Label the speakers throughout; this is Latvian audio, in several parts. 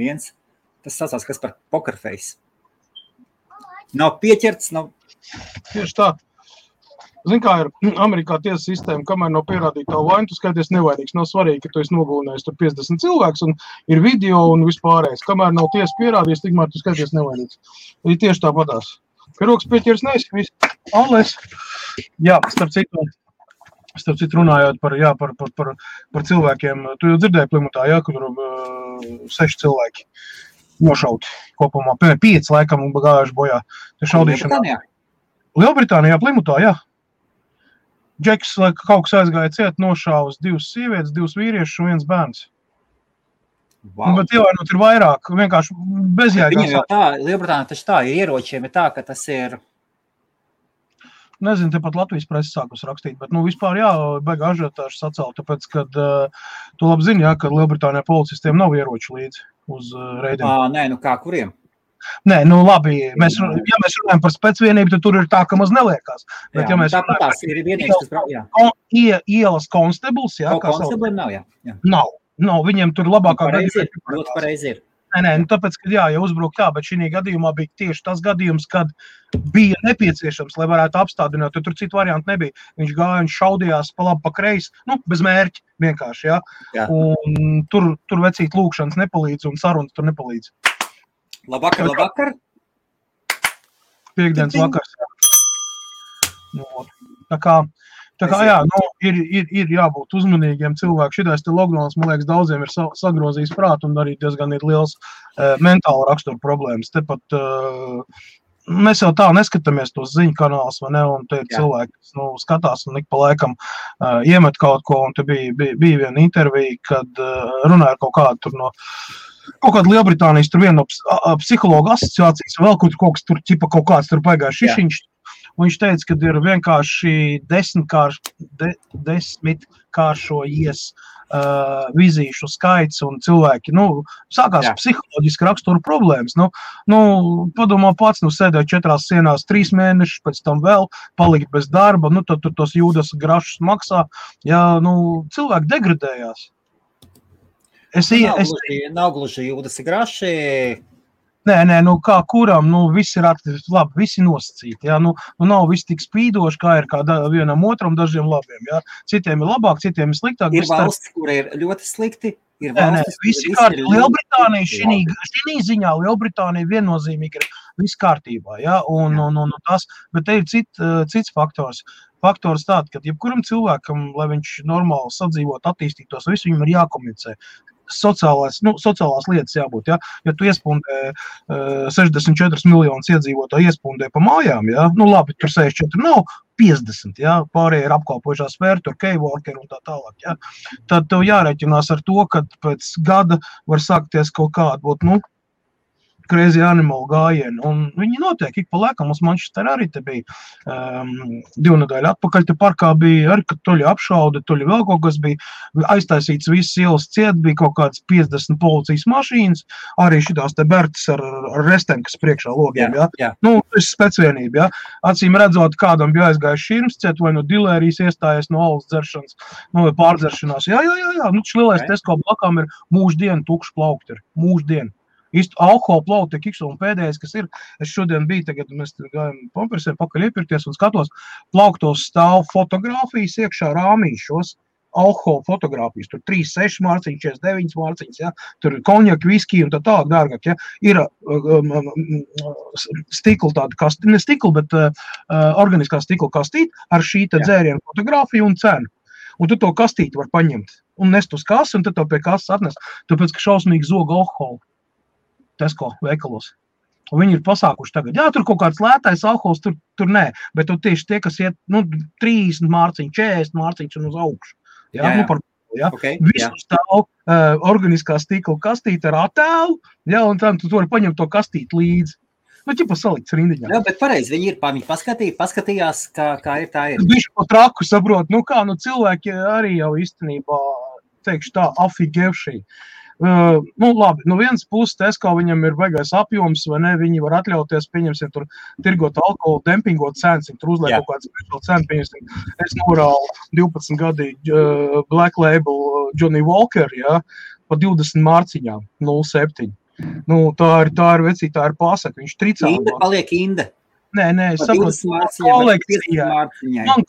Speaker 1: viens, tas saucās, kas par pokerface. Nav pieķerts, nav...
Speaker 2: Tieši tā. Zini, kā ir Amerikā tiesa sistēma, kamēr nav pierādīta tā vaina, tu skaities nevainīgs. Nav svarīgi, ka tu esi nogalinājis tur 50 cilvēks un ir video un vispārējais. Kamēr nav tiesa pierādījis, tikmēr tu skaities nevainīgs. Ir tieši tāpatās. Piroks pieķers neesi, viss. Alles. Jā, starp citu runājot par cilvēkiem. Tu jau dzirdēji Plimutā, jā, ka tur 6 cilvēki nošauti kopumā. 5 laikam un gājuši bojā. Lielbritānijā, Plimutā, jā. Džeks, lai kaut kas aizgāja ciet, nošāvas 2 sievietes, 2 vīriešus un 1 bērns. Wow. Bet ievainot ir vairāk, vienkārši bezjēgās.
Speaker 1: Viņam jau tā, Lielbritānija taču tā, ieročiem ir tā, ka tas ir...
Speaker 2: Nezinu, tepat Latvijas presi sākus rakstīt, bet vispār jā, baigā ažiotāžu sacēl, tāpēc, kad tu labi zini, jā, ka Lielbritānijā policistiem nav ieroču līdzi uz reidiem.
Speaker 1: Nē, kā kuriem?
Speaker 2: Nē, labi, ja mēs runājam par specvienību, tad tur ir tā, ka maz neliekās. Bet,
Speaker 1: jā,
Speaker 2: ja mēs
Speaker 1: tāpat tās ir vienīgs, kas...
Speaker 2: Ielas konstables, jā.
Speaker 1: Konstabliem nav, jā.
Speaker 2: Nav, viņiem tur labākā
Speaker 1: Ļoti pareizi ir.
Speaker 2: Nē, tāpēc, ka jā, ja uzbruk tā, bet šī gadījumā bija tieši tas gadījums, kad bija nepieciešams, lai varētu apstādināt, jo tur citu variantu nebija. Viņš gāja un šaudījās pa labi, pa kreisi, bez mērķi vienkārši, jā. Un tur vecīt lūkšanas nepalīdz un sarunas tur nepalīdz.
Speaker 1: Labvakar.
Speaker 2: Piektdienas vakars. Tā kā jā, ir jābūt uzmanīgiem cilvēki. Šitais te lockdowns, man liekas, daudziem ir sagrozījis prātu un arī diezgan ir liels mentāla rakstura problēmas. Tepat mēs jau tā neskatāmies tos ziņu kanālus, vai ne, un te cilvēki, kas skatās un ik pa laikam iemet kaut ko, un te bija viena intervija, kad runāja kaut kādu tur no kaut kāda Lielbritānijas, tur viena no psihologa asociācijas, vēl kaut kas tur, kaut kāds tur paigāja šišiņš, un viņš teica, ka ir vienkārši 10 kāršojies vizīšu skaits, un cilvēki, sākās psiholoģiski rakstura problēmas. Padomā pats, sēdēja 4 sienās 3 mēnešus, pēc tam vēl palikt bez darba, tad tur tos jūdas grašus maksā, cilvēki degradējās.
Speaker 1: Nav gluži jūdas graši.
Speaker 2: Nē, kā kuram, visi ir labi, visi nosacīti, jā, nav visi tik spīdoši, kā ir vienam otram, dažiem labiem, jā. Citiem ir labāk, citiem ir sliktāk.
Speaker 1: Ir valsts, kur ir ļoti slikti, ir valstis,
Speaker 2: visi kārtībā. Lielbritānija, šī ziņā Lielbritānija viennozīmīgi ir viss kārtībā, jā, un tas, bet te ir cits faktors. Faktors tāds, ka jebkuram cilvēkam, lai viņš normāli sadzīvot, attīstītos, visu viņam ir jākomunicē. Sociālās lietas jābūt, ja tu iespundē 64 miljonus iedzīvotāju iespundē pa mājām, ja, labi, tur 64 nav, 50, ja, pārējie ir apkalpojušā sfēra, tur keyworker un tā tālāk, ja, tad tev jārēķinās ar to, ka pēc gada var sākties kaut kāda būt, crazy animal gājieni, un viņi notiek ik pa laikam, mums Manchester arī te bija 2 nedēļu atpakaļ, te parkā bija arī, kad toļi apšauda, toļi vēl kaut kas bija, aiztaisīts visas ielas ciet, bija kaut kāds 50 policijas mašīnas, arī šitās te Bertas ar restēm, kas priekšā logiem, ja. Tas ir specvienība, ja. Acīm redzot, kādam bija aizgājis širms ciet, vai no dilērijas iestājies no alus dzeršanas, vai pārdzeršanās, jā, lielais Tesco blakām ir mūždien tukši plaukti ir, mūždien. Īsti alkohola plauti, un pēdējais, kas ir, es šodien biju, tagad mēs gājam pampersiem pakaļ iepirkties un skatos, plauktos stāv fotogrāfijas iekšā rāmīšos, alkohola fotogrāfijas, tur 3, 6 mārciņas, 49 mārciņas, ja, tur konjaki, viski un tā tālāk dārgāk, ja, ir stikla tāda kastīte, ne stikla, bet organiskā stikla kastīte ar šī te dzērienu fotogrāfiju un cenu. Un tu to kastīti var paņemt un nest uz kasu, un tad to pie kasas atnest, tāpēc, ka šausmīgi zog alkoholu. Tesco veikalos. Un viņi ir pasākuši tagad. Jā, tur kaut kāds lētais alkohols, tur nē, bet tieši tie, kas iet, 30 mārciņu, 40 mārciņus un uz augšu. Jā.
Speaker 1: Okay,
Speaker 2: visu stāv organiskā stikla kastīte ar attēlu, jā, un tad tu vari paņemt to kastīti līdzi. Ķipa salikts rindiņā.
Speaker 1: Jā, bet pareizi, viņi paskatījās, kā ir tā ir.
Speaker 2: Bišķi pa traku saprot, cilvēki arī jau īstenībā, teikšu tā, afigevšī. Labi, vienas puses Tesco viņam ir baigais apjoms, vai ne, viņi var atļauties, pieņemsim, tur tirgot alkoholu, dempingot cenas, tur uzliek kaut kāds speciāli cenu, pieņemsim, es norālu 12 gadīgi Black Label Johnny Walker, ja, pa 20 mārciņām, 0,7. Nu, tā ir vecī, tā ir pasaka, viņš tricā.
Speaker 1: Inda paliek Inda.
Speaker 2: Nē, es saprotu, man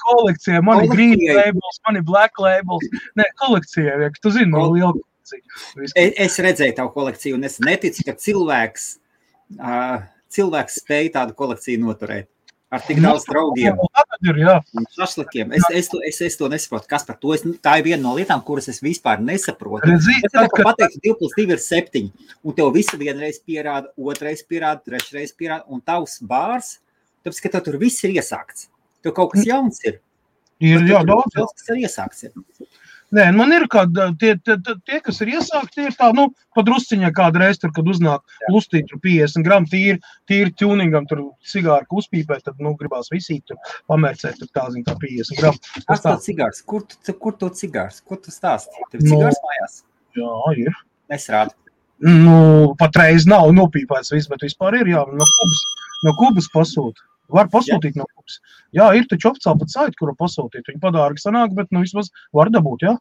Speaker 2: kolekcijai, man ir green labels, man ir black labels. Nē, kolekcijai, tu zini, man liela kolekcija.
Speaker 1: Es redzēju tavu kolekciju, un es neticu, ka cilvēks spēja tādu kolekciju noturēt. Ar tik daudz draugiem un šašlikiem. Es to nesaprotu. Kas par to? Tā ir viena no lietām, kuras es vispār nesaprotu. Es pateiktu, 2 + 2 ir 7, un tev visu vienreiz pierāda, otrais pierāda, trešreiz pierāda, un tavs bārs, tāpēc, ka tev tur viss ir iesākts. Tev kaut kas jauns ir.
Speaker 2: Jā, daudz.
Speaker 1: Kas ir iesākts.
Speaker 2: Nē, man ir tie, kas ir iesākti, tie ir tā, padrusciņā kādreiz tur, kad uznāk lustīt tur 50 gramu tīri tuningam, tur cigāru uzpīpēt, tad, gribās visīt tur pamērcēt, tur tā 50 gramu.
Speaker 1: Kas tā cigārs? Kur to cigārs? Kur tu stāsti? Tev cigārs mājās?
Speaker 2: Jā, ir.
Speaker 1: Nesrādi.
Speaker 2: Patreiz nav nopīpēts viss, bet vispār ir, jā, no Kubas pasūta. Var pasūtīt no Kubas. Jā, ir taču oficiāli pat saiti, kuru pasūtīt. Viņi padārgi sanāk, bet vismaz var dabūt, jā.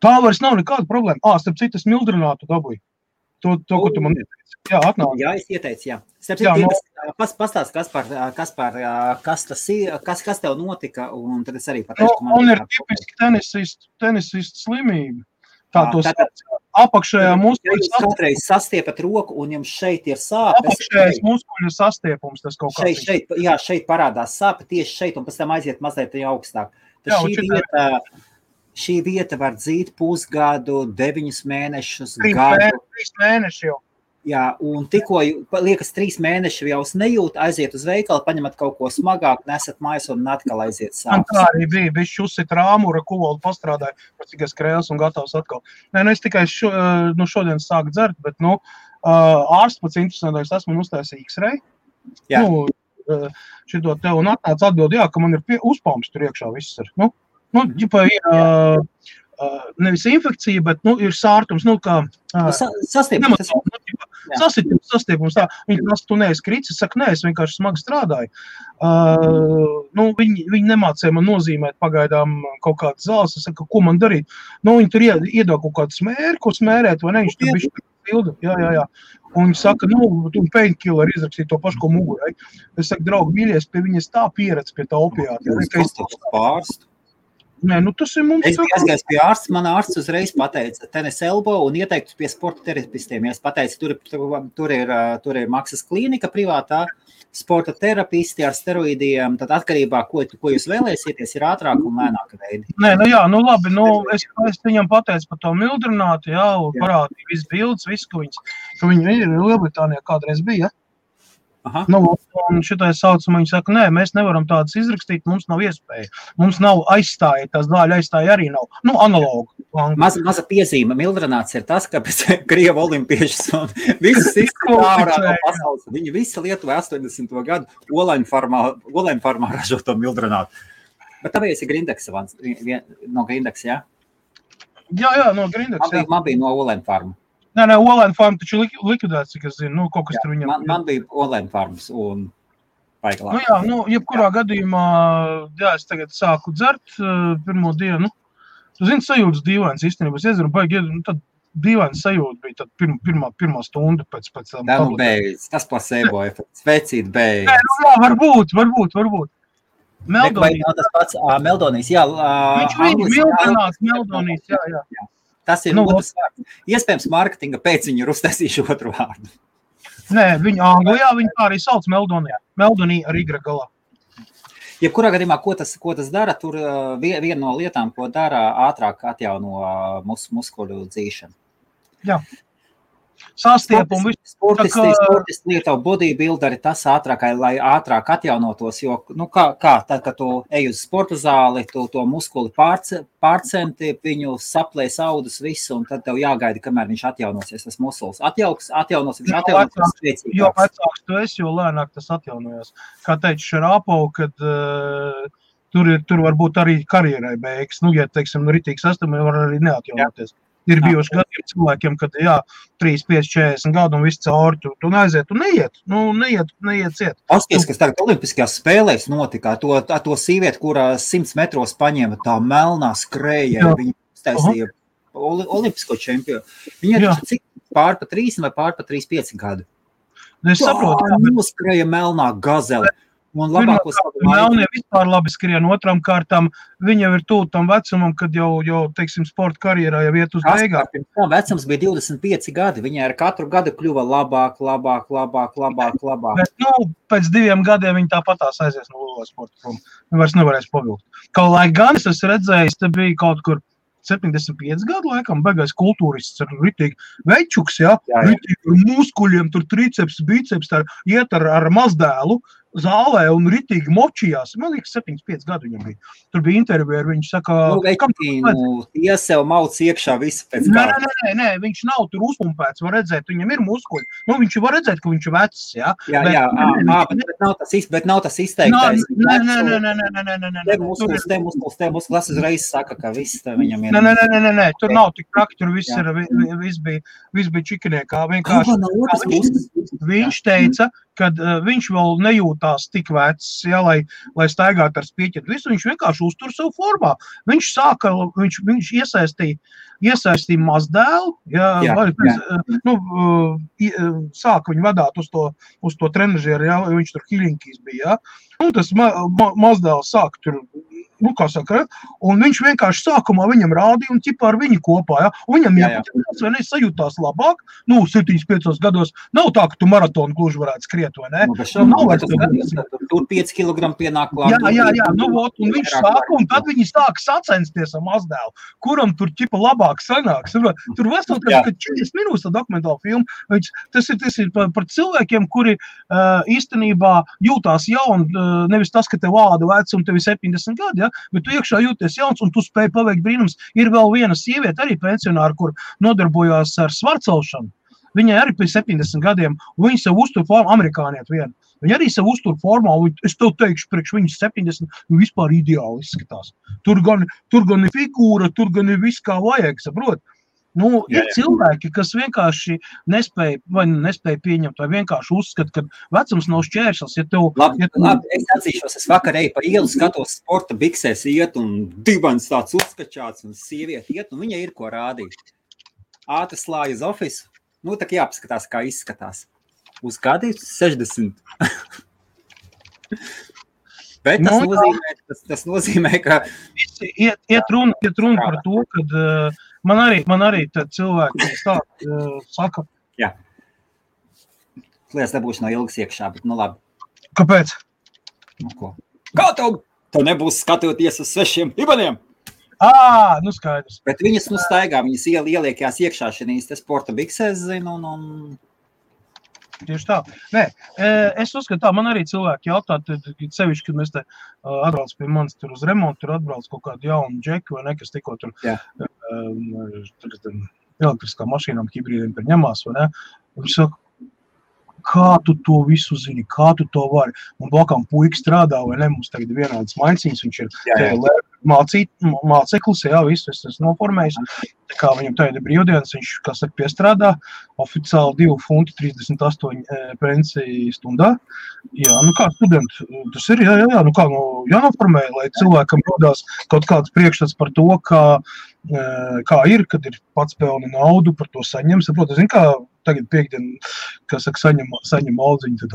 Speaker 2: Tā vairs nav nekāda problēma. Starp citu, es mildrinātu dabūju. To, ko tu man ieteici. Jā, atnāk.
Speaker 1: Jā, es ieteicu, jā. Starp citu, pastāst, kas tev notika, un tad es arī pateikšu.
Speaker 2: Man ir tipiski tenisistu slimība. Apakšējā muskuļu
Speaker 1: kādreiz sastiepat roku, un jums šeit ir sāpes.
Speaker 2: Apakšējais muskuļu sastiepums, tas kaut kā.
Speaker 1: Šeit parādās sāpe tieši šeit, un pēc tam aiziet mazliet augstāk. Šī vieta var dzīt pusgadu, 9 mēnešus, gadu.
Speaker 2: 3 mēneši jau.
Speaker 1: Jā, un tikko liekas 3 mēneši jau nejūt, aiziet uz veikalu, paņemat kaut ko smagāk, nesat mājās un atkal aiziet sāpes.
Speaker 2: Man tā arī bija, bišķi uzsit rāmura, kuvaldu pastrādāju, cik es krēls un gatavs atkal. Nē, es tikai šodien sāku dzert, bet, ārsts pats interesantāks, esmu uztaisījis X-ray.
Speaker 1: Jā.
Speaker 2: Šito te un atnāc atbild, jā, ka man ir uzpalms tur iekšā viss ir. Ģipa ir nevis infekcija, bet, ir sārtums,
Speaker 1: Sastiepums.
Speaker 2: Sastiepums, tā. Viņi prasa, tu neesi kritis, es saku, nē, es vienkārši smagi strādāju. Viņi nemācīja man nozīmēt pagaidām kaut kādas zāles, es saku, ko man darīt. Viņi tur iedod kaut kādu smēri, ko smērēt, vai ne, viņš tur bišķi pildu, jā. Un viņi saka, tu painkiller izrakstīja to pašu, ko mugurai. Es saku, draugi, mīļies, pie viņas tā pieredz pie tā opiāta.
Speaker 1: Pārstu.
Speaker 2: Nē, tas ir mums.
Speaker 1: Es biju aizgājis pie ārsta, man ārsts uzreiz pateica tenis elbow un ieteiktu pie sporta terapistiem. Ja es pateicu, tur ir maksas klīnika privātā, sporta terapisti ar steroīdiem, tad atkarībā, ko jūs vēlēsieties, ir ātrāk un lēnāk veidi.
Speaker 2: Nē, labi, es viņam pateicu par to mildrinātu, un parādīju visu bildes, visu, ka viņi ir Lielbritānijā kādreiz bija.
Speaker 1: Aha.
Speaker 2: Un šitais saucam, viņi saka, nē, mēs nevaram tādas izrakstīt, mums nav iespēja. Mums nav aizstāja, tās zāļu aizstāja arī nav. Analogu.
Speaker 1: Maza piezīme, mildrināts ir tas, ka pēc Krievu olimpiešas un visas ārā no pasaules, viņi visi Lietuvā 80. gadu Olainfarmā ražo to mildrinātu. Bet tāpēc ir Grindeks, no Grindeks, jā?
Speaker 2: Jā, no Grindeks, jā.
Speaker 1: Man bija no Olainfarma.
Speaker 2: Nē, Olainfarma taču likvidēts, cik es zinu, kaut kas tur viņam.
Speaker 1: Man bija Olainfarmas un paigalā.
Speaker 2: Jebkurā gadījumā, es tagad sāku dzert pirmo dienu. Tu zini, sajūtas dīvains īstenībā. Es iezaru, tad dīvains sajūta bija tad pirmā stunda pēc tam.
Speaker 1: Beidz, tas placebo efekts, vecīt beidz.
Speaker 2: Nē, varbūt.
Speaker 1: Meldonijas. Tas pats Meldonijas, jā.
Speaker 2: Viņš mildrinās Meldonijas, jā.
Speaker 1: Tas ir otrs vārds. Iespējams, marketinga pēc viņu ir uztaisījuši otru vārdu.
Speaker 2: Nē, Anglijā viņi tā arī sauc Meldonija. Meldonija ar Y galā.
Speaker 1: Jebkurā gadījumā, ko tas dara, tur viena no lietām, ko dara, ātrāk atjauno muskuļu dzīšanu. Jā.
Speaker 2: Sastiepumu.
Speaker 1: Sportisti lietavu bodybuilderi, tas ātrākai, lai ātrāk atjaunotos, jo, tad, kad tu ej uz sporta zāli, tu to muskuli pārcenti, viņu saplēs audus visu, un tad tev jāgaida, kamēr viņš atjaunosies, tas muskulis atjaunos, viņš atjaunosies spēcīgāks.
Speaker 2: Jo vecāks tu esi, jo lēnāk tas atjaunojās. Kā teica Šarāpov, kad tur varbūt arī karjerai beigas, ja, teiksim, ritīgs estamai var arī neatjaunoties. Ir bijuši gadiem cilvēkiem, kad 3, 5, 40 gadu un viss cauri, tu neaiziet, tu neiet ciet.
Speaker 1: Pasties, kas tagad olimpiskajās spēlēs notika, to sīvieti, kurā 100 metros paņēma tā melnā skrēja, viņa uztaisīja olimpisko čempionu. Viņa pār pa 3 vai pār pa 3,5 gadu.
Speaker 2: Es saprotu, jā, bet
Speaker 1: noskrēja melnā gazele. Un labākos
Speaker 2: Melnie vispār labi skrien, otram kārtām viņa jau ir tuvu tam vecumam, kad jau, teiksim, sporta karjerā jau iet uz beigām.
Speaker 1: Tā vecums bija 25 gadi, viņa ar katru gadu kļuva labāk.
Speaker 2: Bet, pēc 2 gadiem viņa tāpatās aizies no lielā sporta prom. Viņa vairs nevarēs pavilkt. Kaut lai gan es esmu redzējis, te bija kaut kur 75 gadu laikam, beigais kultūrists ar ritīgi večuks, ritīgi ar muskuļiem, tur triceps, biceps, iet ar mazdēlu zālē un ritīgi močījās. Man liekas, 75 gadu viņam bija. Tur bija intervija ar viņu, saka...
Speaker 1: Ja sev mauc iekšā visu pēc
Speaker 2: kāda. Nē, viņš nav tur uzpumpēts, var redzēt, viņam ir muskuļi. Viņš var redzēt, ka viņš ir vecs, jā?
Speaker 1: Bet nav tas izteiktais.
Speaker 2: Nē.
Speaker 1: Te muskulis uzreiz saka, ka viss viņam ir...
Speaker 2: Nē, tur nav tik traki, tur viss bija čikiniekā. Viņš teica, kad viņš vēl nejūtās tik vecs, lai staigātu ar spieķetu visu, viņš vienkārši uztur savu formā. Viņš iesaistīja mazdēlu, sāka viņu vadāt uz to trenažieru, viņš tur Hiļinkīs bija, un tas mazdēls sāka tur, un viņš vienkārši sākumā viņam rādīja un ķipā ar viņu kopā, un viņam jāpatīkās, vai ne, sajūtās labāk, 7-5 gados, nav tā, ka tu maratonu gluži varētu skriet, vai ne?
Speaker 1: Tur 5 kilogramu pienāk klāt.
Speaker 2: Jā, un viņš sāka, un tad viņi sāka sacensties ar mazdēlu, kuram tur ķipa labāk sanāks. Tur vesel, kad 40 minūtes tā dokumentāla filma, tas ir par cilvēkiem, kuri īstenībā jūtās jauni, nevis tas, ka tev āda vec un tev ir 70 gadi, bet tu iekšā jūties jauns un tu spēj paveikt brīnums. Ir vēl viena sieviete, arī pensionāra, kur nodarbojās ar svarcelšanu. Viņai arī pēc 70 gadiem, un viņa sev uztur formā, amerikāniet viena. Viņa arī sev uztur formā, un es tev teikšu, priekš viņas 70, vispār ideāli izskatās. Tur gan ir figūra, tur gan ir viss kā vajag, saprot? Ir cilvēki, kas vienkārši nespēja pieņemt, vai vienkārši uzskata, ka vecums nav šķērslis.
Speaker 1: Labi, es atzīšos, es vakar eju pa ielu, skatos sporta biksēs iet, un dibans tāds uzskačāts, un sievieti iet, un viņa ir ko rādīt. Ātri slāja uz ofisu, tā jāpaskatās, kā izskatās. Uz kādi 60. Bet tas nozīmē, ka...
Speaker 2: Iet runa par to, kad man arī cilvēki saka...
Speaker 1: Jā. Lietas nebūs no ilgas iekšā, bet labi.
Speaker 2: Kāpēc?
Speaker 1: Ko? Kā tev nebūs skatoties uz svešiem ibaniem?
Speaker 2: Skaidrs.
Speaker 1: Bet viņas staigā, viņas ieliekās iekšā šīs sporta biksēs, zinu, un...
Speaker 2: Tieši tā. Nē, es uzskatu tā, man arī cilvēki jautā, sevišķi, kad mēs te atbrauc pie manis tur uz remontu, tur atbrauc kaut kādu jaunu džeku vai nekas tikko tur elektriskā mašīnām, hibrīdiem tur ņemās, vai ne? Viņš saka, kā tu to visu zini, kā tu to vari? Un blakām puika strādā, vai ne? Mums tagad ir vienādas maņciņas, viņš ir māceklis, visu es noformējis. Tā kā viņam tagad ir brīvdienas, viņš, kā saka, piestrādā, oficiāli 2,38 pensiju stundā. Jā, kā studenti, tas ir, jānoformē, lai cilvēkam rodās kaut kāds priekšstats par to, kā ir, kad ir pats pelna naudu, par to saņem. Saprot, zin, kā tagad piekdien, kā saka, saņem audziņu, tad,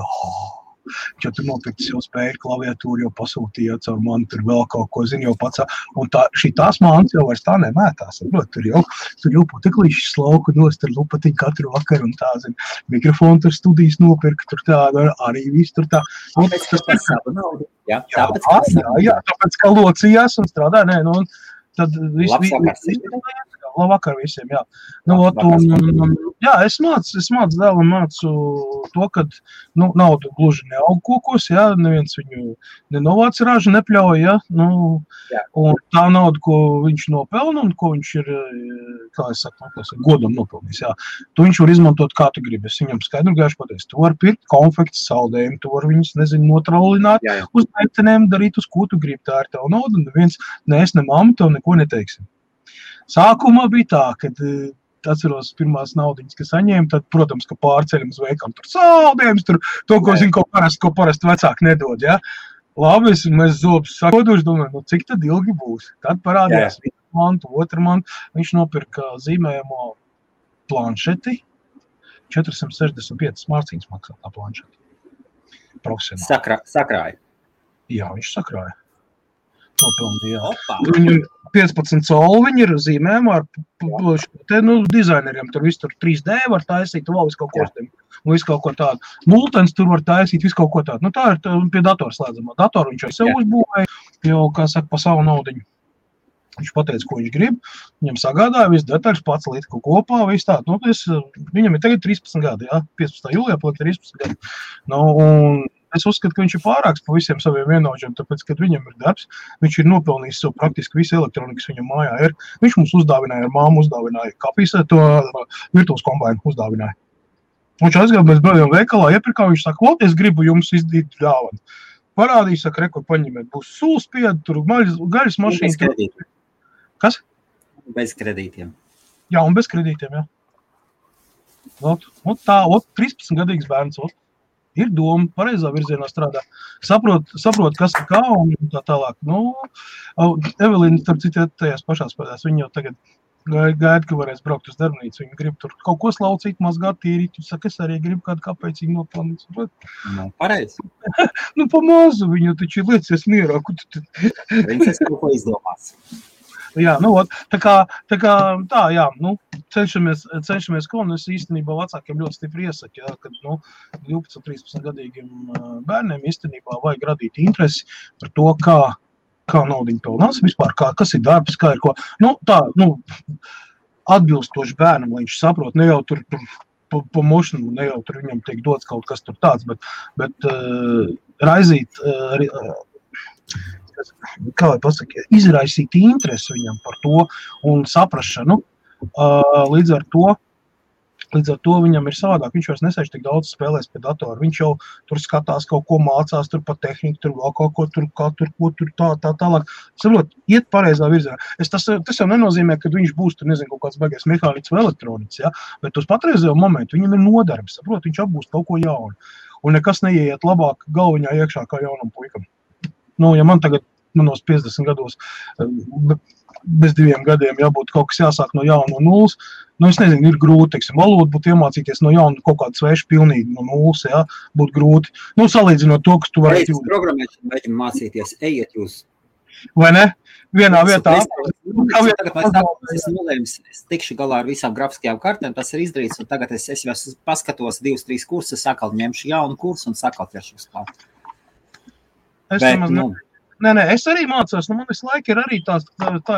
Speaker 2: ja tu nopirkt jau spēju klaviatūru, jau pasūtīja caur mani, tur vēl kaut ko, zini, jau pats. Un šitās mānas jau vairs tā nemētās. Tur jau puteklīšas slauku nost ar lupatiņu katru vakaru un tā, zini. Mikrofonu tur studijas nopirka, tur tā, arī viss tur tā.
Speaker 1: Tas savu naudu. Jā,
Speaker 2: tāpēc kā locījās un strādā, tad labvakar visiem, jā. Es mācu dēlam, mācu to, ka nauda gluži neaug kokos, neviens viņu nenovāc ražu, nepļauj, un tā nauda, ko viņš nopelna un ko viņš ir, kā es saku, godam nopelnījis, tu viņš var izmantot kā tu gribi. Es viņam skaidru gaišu pateicu, tu var pirkt konfekts, saldējumu, tu var viņus, notraulināt uz meitenēm, darīt uz ko tu gribi, tā ir tev nauda, un neviens, ne es, ne mamma, tev neko neteiksim. Sākumā bija tā, kad atceros pirmās naudiņas, kas saņēma, tad, protams, ka pārceļam uz veikam tur saldējums, tur to, ko zinu, ko parasti vecāki nedod, Labi, mēs zobus sakoduši, domāju, cik tad ilgi būs? Tad parādījās viena mantu, otra mantu, viņš nopirka zīmējamo planšeti, 465 mārciņas maksā tā planšeta. Profesionāli.
Speaker 1: Sakrāja.
Speaker 2: Jā, viņš sakrāja. Nopelnīja. Viņam 15 colu, viņi ir zīmējumi ar dizaineriem. Tur viss tur 3D var taisīt, vēl visu kaut ko tādu. Un visu kaut ko tādu. Multens tur var taisīt, visu kaut ko tādu. Nu, tā ir pie datora slēdzamā. Datoru viņš jau sev uzbūvēja, jau, kā saka, pa savu naudiņu. Viņš pateica, ko viņš grib. Viņam sagādāja visu detaļas, pats līdz kaut kopā, visu tādu. Nu, viņam ir tagad 13 gadi, jā. 15. jūlijā paliek 13 gadi. Nu, un es uzskatu, ka viņš ir pārāks pa visiem saviem vienaudžiem, tāpēc, kad viņam ir darbs, viņš ir nopelnījis savu praktiski visu elektronikas viņam mājā ir. Viņš mums uzdāvināja, ar māmu uzdāvināja kapīsē, to virtuves kombainu uzdāvināja. Viņš aizgāja, mēs brādījām veikalā, iepirkā, viņš saka, es gribu jums izdīt dāvanu. Parādīja, saka, rekur paņemiet, būs sūlspiedi, tur gaļas mašīna. Kas?
Speaker 1: Bez kredītiem.
Speaker 2: Jā, un bez kredītiem, jā. Ot tā, 13-gadīgs bērns, ir doma, pareizā virzienā strādā. Saprot, kas ir kā un tā tālāk. Nu, Evelīna, starp citu, tajās pašās pēdās, viņa jau tagad gaida, ka varēs braukt uz darbnīcu. Viņa grib tur kaut ko slaucīt, mazgāt, tīrīt. Viņa saka, es arī gribu kādu kāpēcīgi nopelnīt.
Speaker 1: Nu, pareizi.
Speaker 2: Nu, pa mazu viņu taču liecies mierā.
Speaker 1: Viņš kaut ko izdomās.
Speaker 2: Jā, nu, tā kā, jā, nu, cenšamies ko, un es īstenībā vecākiem ļoti stipri iesaku, jā, kad, 12-13 gadīgiem bērniem īstenībā vajag radīt interesi par to, kā naudiņu pelnās, vispār, kas ir darbs, kā ir ko, atbilstoši bērnam, lai viņš saprot, ne jau tur pa mošanu, ne jau tur viņam tiek dots kaut kas tur tāds, bet raizīt, kā lai pasaka, izraisīt interesi viņam par to un saprašanu. Līdz ar to viņam ir savādāk. Viņš vairs nesēž tik daudz spēlēs pie datora. Viņš jau tur skatās kaut ko mācās, tur pa tehniku, tur vēl kaut ko, tur tālāk. Saprot, iet pareizā virzienā. Tas jau nenozīmē, ka viņš būs tur, nezinu, kaut kāds baigais mehāniķis vai elektroniķis, ja? Bet uz patreizējo momentu viņam ir nodarbs, saprot, viņš apgūst kaut ko jaunu. Un nekas neieiet labāk galviņā iekšā kā jaunam puikam. Nu, ja man tagad, manos 50 gados, bez 2 gadiem jābūt kaut kas jāsāk no jauna no nulles, es nezinu, ir grūti, teiksim, valodu būtu iemācīties no jauna kaut kādu svešu pilnīgi no nulles, jā, būtu grūti. Salīdzinot to, kas tu varētu
Speaker 1: jūtas. Programmēšanu mēģinu mācīties, ejiet jūs.
Speaker 2: Vai ne? Vienā vietā.
Speaker 1: Es tikšu galā ar visām grafiskajām kartēm, tas ir izdarīts, un tagad es jau paskatos 2-3 kursus, sakal ņemšu jaunu kursu un sakal ķeršu uz klāt.
Speaker 2: Nē, es arī mācos, man visu laiku ir arī tā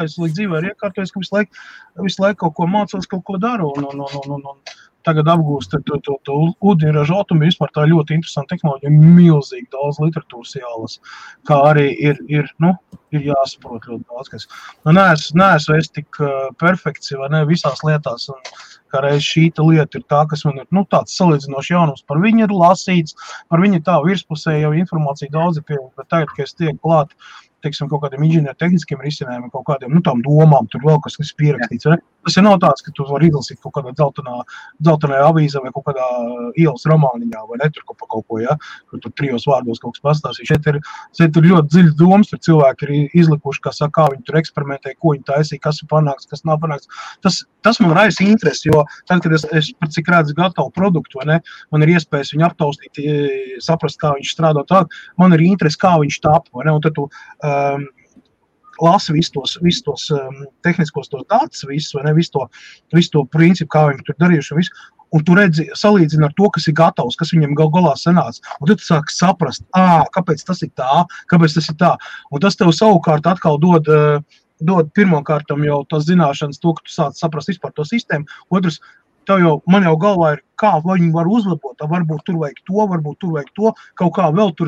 Speaker 2: es līdz dzīvē ir iekārtojis, ka visu laiku kaut ko mācos, kaut ko daru, un tagad apgūst to ūdeņraža atomu, vispār tā ļoti interesanta tehnoloģija, milzīgi daudz literatūras jālas, kā arī ir jāsaprot ļoti daudz, kas. Neesmu es tik perfekts, vai ne, visās lietās, un kā reiz šīta lieta ir tā, kas man ir, tāds salīdzinoši jaunums, par viņu ir lasīts, par viņu tā virspusē jau informācija daudz ir pieejama, bet tagad, kad es tiek klāt, teiksim, kaut kādiem inženiertehniskiem risinājumiem, kaut kādiem, tām domām, tur vēl kas pierakstīts, vai ne? Tas ir nav tāds, ka tu vari izlasīt kaut kādā dzeltenajā avīzē vai kaut kādā ielas romāniņā, vai ne, tur kaut ko, ja, kur tur 3 vārdos kaut kas pastāstīs. Šeit ir ļoti dziļas domas, tur cilvēki ir izlikuši, kā viņi tur eksperimentē, ko viņi taisīja, kas ir panāks, kas nav panāks. Tas man raisa interesi, jo tad, kad es par cik redzu gatavu produktu, vai ne, man ir iespējas viņu aptaustīt, saprast, kā viņš strādā tālāk, man ir interesi, kā viņš tapa, vai ne, un tad tu lasi visus tos tehniskos tos datus, vai ne, visu to principu, kā viņi tur darījuši un visu, un tu redzi, salīdzini ar to, kas ir gatavs, kas viņam galā sanāca, un tad tu sāki saprast, kāpēc tas ir tā, kāpēc tas ir tā, un tas tev savukārt atkal dod pirmkārtam jau tās zināšanas, to, ka tu sāc saprast vispār to sistēmu, otrs, man jau galvā ir, kā viņi var uzlabot, varbūt tur vajag to, kaut kā vēl tur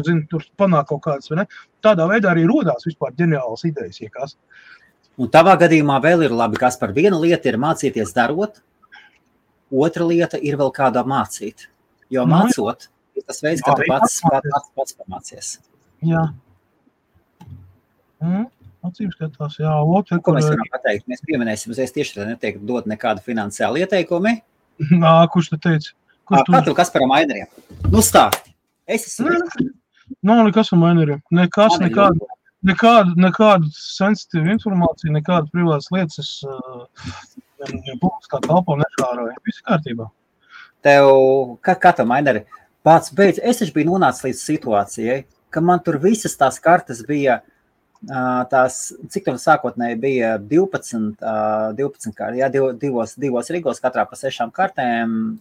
Speaker 2: panāk kaut kādas, vai ne? Tādā veidā arī rodās vispār ģeniālas idejas, iekās.
Speaker 1: Un tavā gadījumā vēl ir labi, kas par viena lieta ir mācīties darot, otra lieta ir vēl kādā mācīt. Jo mācot, ir tas veids, ka tu pats pamācies.
Speaker 2: Jā. Acīm skatās, jā.
Speaker 1: Ko mēs varam pateikt? Mēs pieminēsim, es tieši tā neteiktu dot nekādu finansiālu ieteikumi.
Speaker 2: Kurš te teica?
Speaker 1: Katru Kasparam Aineriem. Stāsti. Es esmu.
Speaker 2: Nav nekas ar Aineriem. Nekādu sensitīvu informāciju, nekādu privātas lietas es publiskā telpā neškāroju. Viss kārtībā.
Speaker 1: kā tev, Maineri, pats beidz, es taču biju nonācis līdz situācijai, ka man tur visas tās kartas bija, cik tev sākotnēji bija 12 kartas, jā, divos rigos, katrā pa 6 kartēm,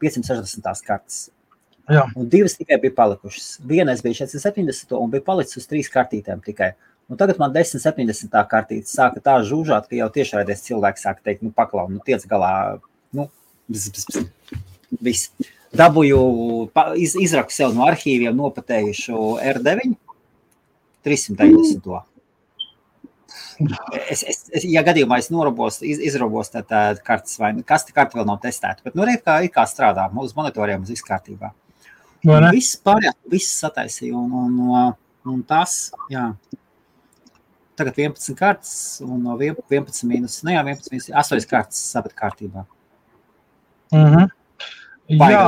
Speaker 1: 560 kartas.
Speaker 2: Jā.
Speaker 1: Un 2 tikai bija palikušas. Vienais bija 470 un bija palicis uz 3 kartītēm tikai. Un tagad man 1070 kartītes sāka tā žūžāt, ka jau tiešraidies cilvēki sāka teikt, paklau, tiec galā, viss. Dabūju, izraku sev no arhīviem nopatējušu R9, 390. Ja gadījumā es izrobos tā kartas vai kasti karta vēl nav testēta, bet kā strādā, uz monitoriem uz viss kārtībā. Viss pārējās, viss sataisīja un tas, jā. Tagad 11 kartas un no 11 mīnus, 8 kartas sabat kārtībā.
Speaker 2: Jā,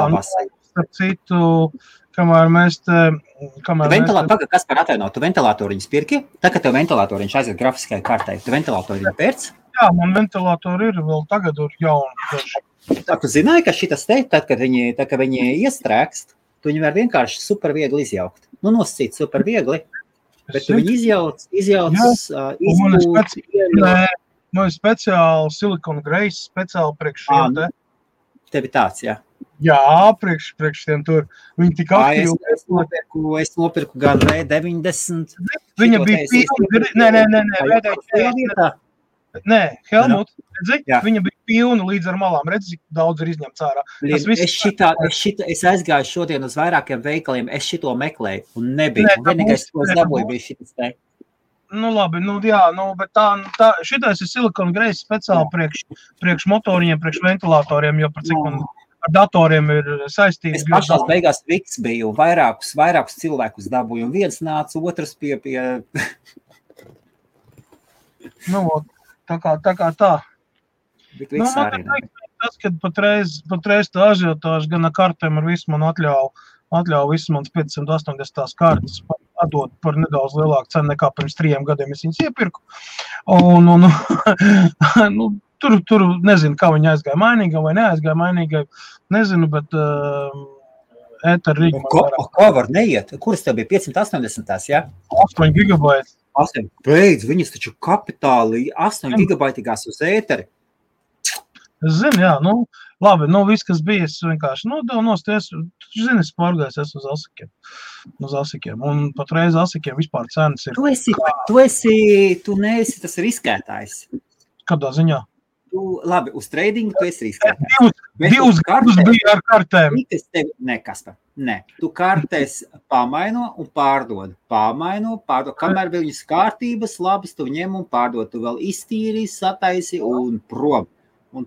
Speaker 2: starp citu, kamēr mēs
Speaker 1: Kas par atvainot, tu ventilātoriņus pirki? Tā, kad tev ventilātoriņš aiziet grafiskai kartai, tu ventilātoriņu pērc?
Speaker 2: Jā, man ventilātori ir vēl tagad ir jauni.
Speaker 1: Tā, tu zināji, ka šitas te, tad, kad viņi iestrēgst, tu viņi var vienkārši super viegli izjaukt. Nosacīt super viegli, bet tu viņi izjauc,
Speaker 2: Man ir speciāli silikona greis, speciāli priekš šiem te.
Speaker 1: Tev ir tāds, jā?
Speaker 2: Jā, priekš tiem tur. Viņi tik aktīvi.
Speaker 1: Es nopirku gan V90.
Speaker 2: Viņa bija pilna. Nē, Helmut, redzi, viņa bija pilna līdz ar malām. Redzi, daudz ir izņemts ārā.
Speaker 1: Es aizgāju šodien uz vairākiem veikaliem, es šito meklēju un nebija. Vienīgais, ko es dabūju, bija šitas te.
Speaker 2: Labi, bet šitais ir silikona greis speciāli priekš motoriem, priekš ventilātoriem, jo par cik man ar datoriem ir saistīts.
Speaker 1: Es pašās beigās viks biju un vairākus cilvēkus dabūju, un viens nāca, otrs pie...
Speaker 2: Tā kā tā. Tas, kad patreiz tā ažiotāža gan ar kartēm ar visu man atļauj visu manas 580 kartas atdot par nedaudz lielāku cenu nekā pirms 3 gadiem es viņas iepirku. Tur nezinu, kā viņi aizgāja mainīgai vai neaizgāja mainīgai, nezinu, bet ēter Rīga.
Speaker 1: Ko var neiet? Kuras tev bija 580, jā?
Speaker 2: 8 gigabaiti.
Speaker 1: Beidz, viņas taču kapitāli 8 gigabaitīgās uz ēteri.
Speaker 2: Es zinu, jā, labi, viss, kas bija, es vienkārši nosties, tu zini, es pārgājos uz asikiem, un patreiz asikiem vispār cenas ir.
Speaker 1: Tu neesi tas riskētājs.
Speaker 2: Kādā ziņā?
Speaker 1: Labi, uz tradingu tu esi riskētājs.
Speaker 2: Divus gadus bija ar kartēm.
Speaker 1: Nē, tu kartēs pamaino un pārdod. Kamēr viņas kārtības labas, tu ņem un pārdod. Tu vēl iztīri, sataisi un prom. Un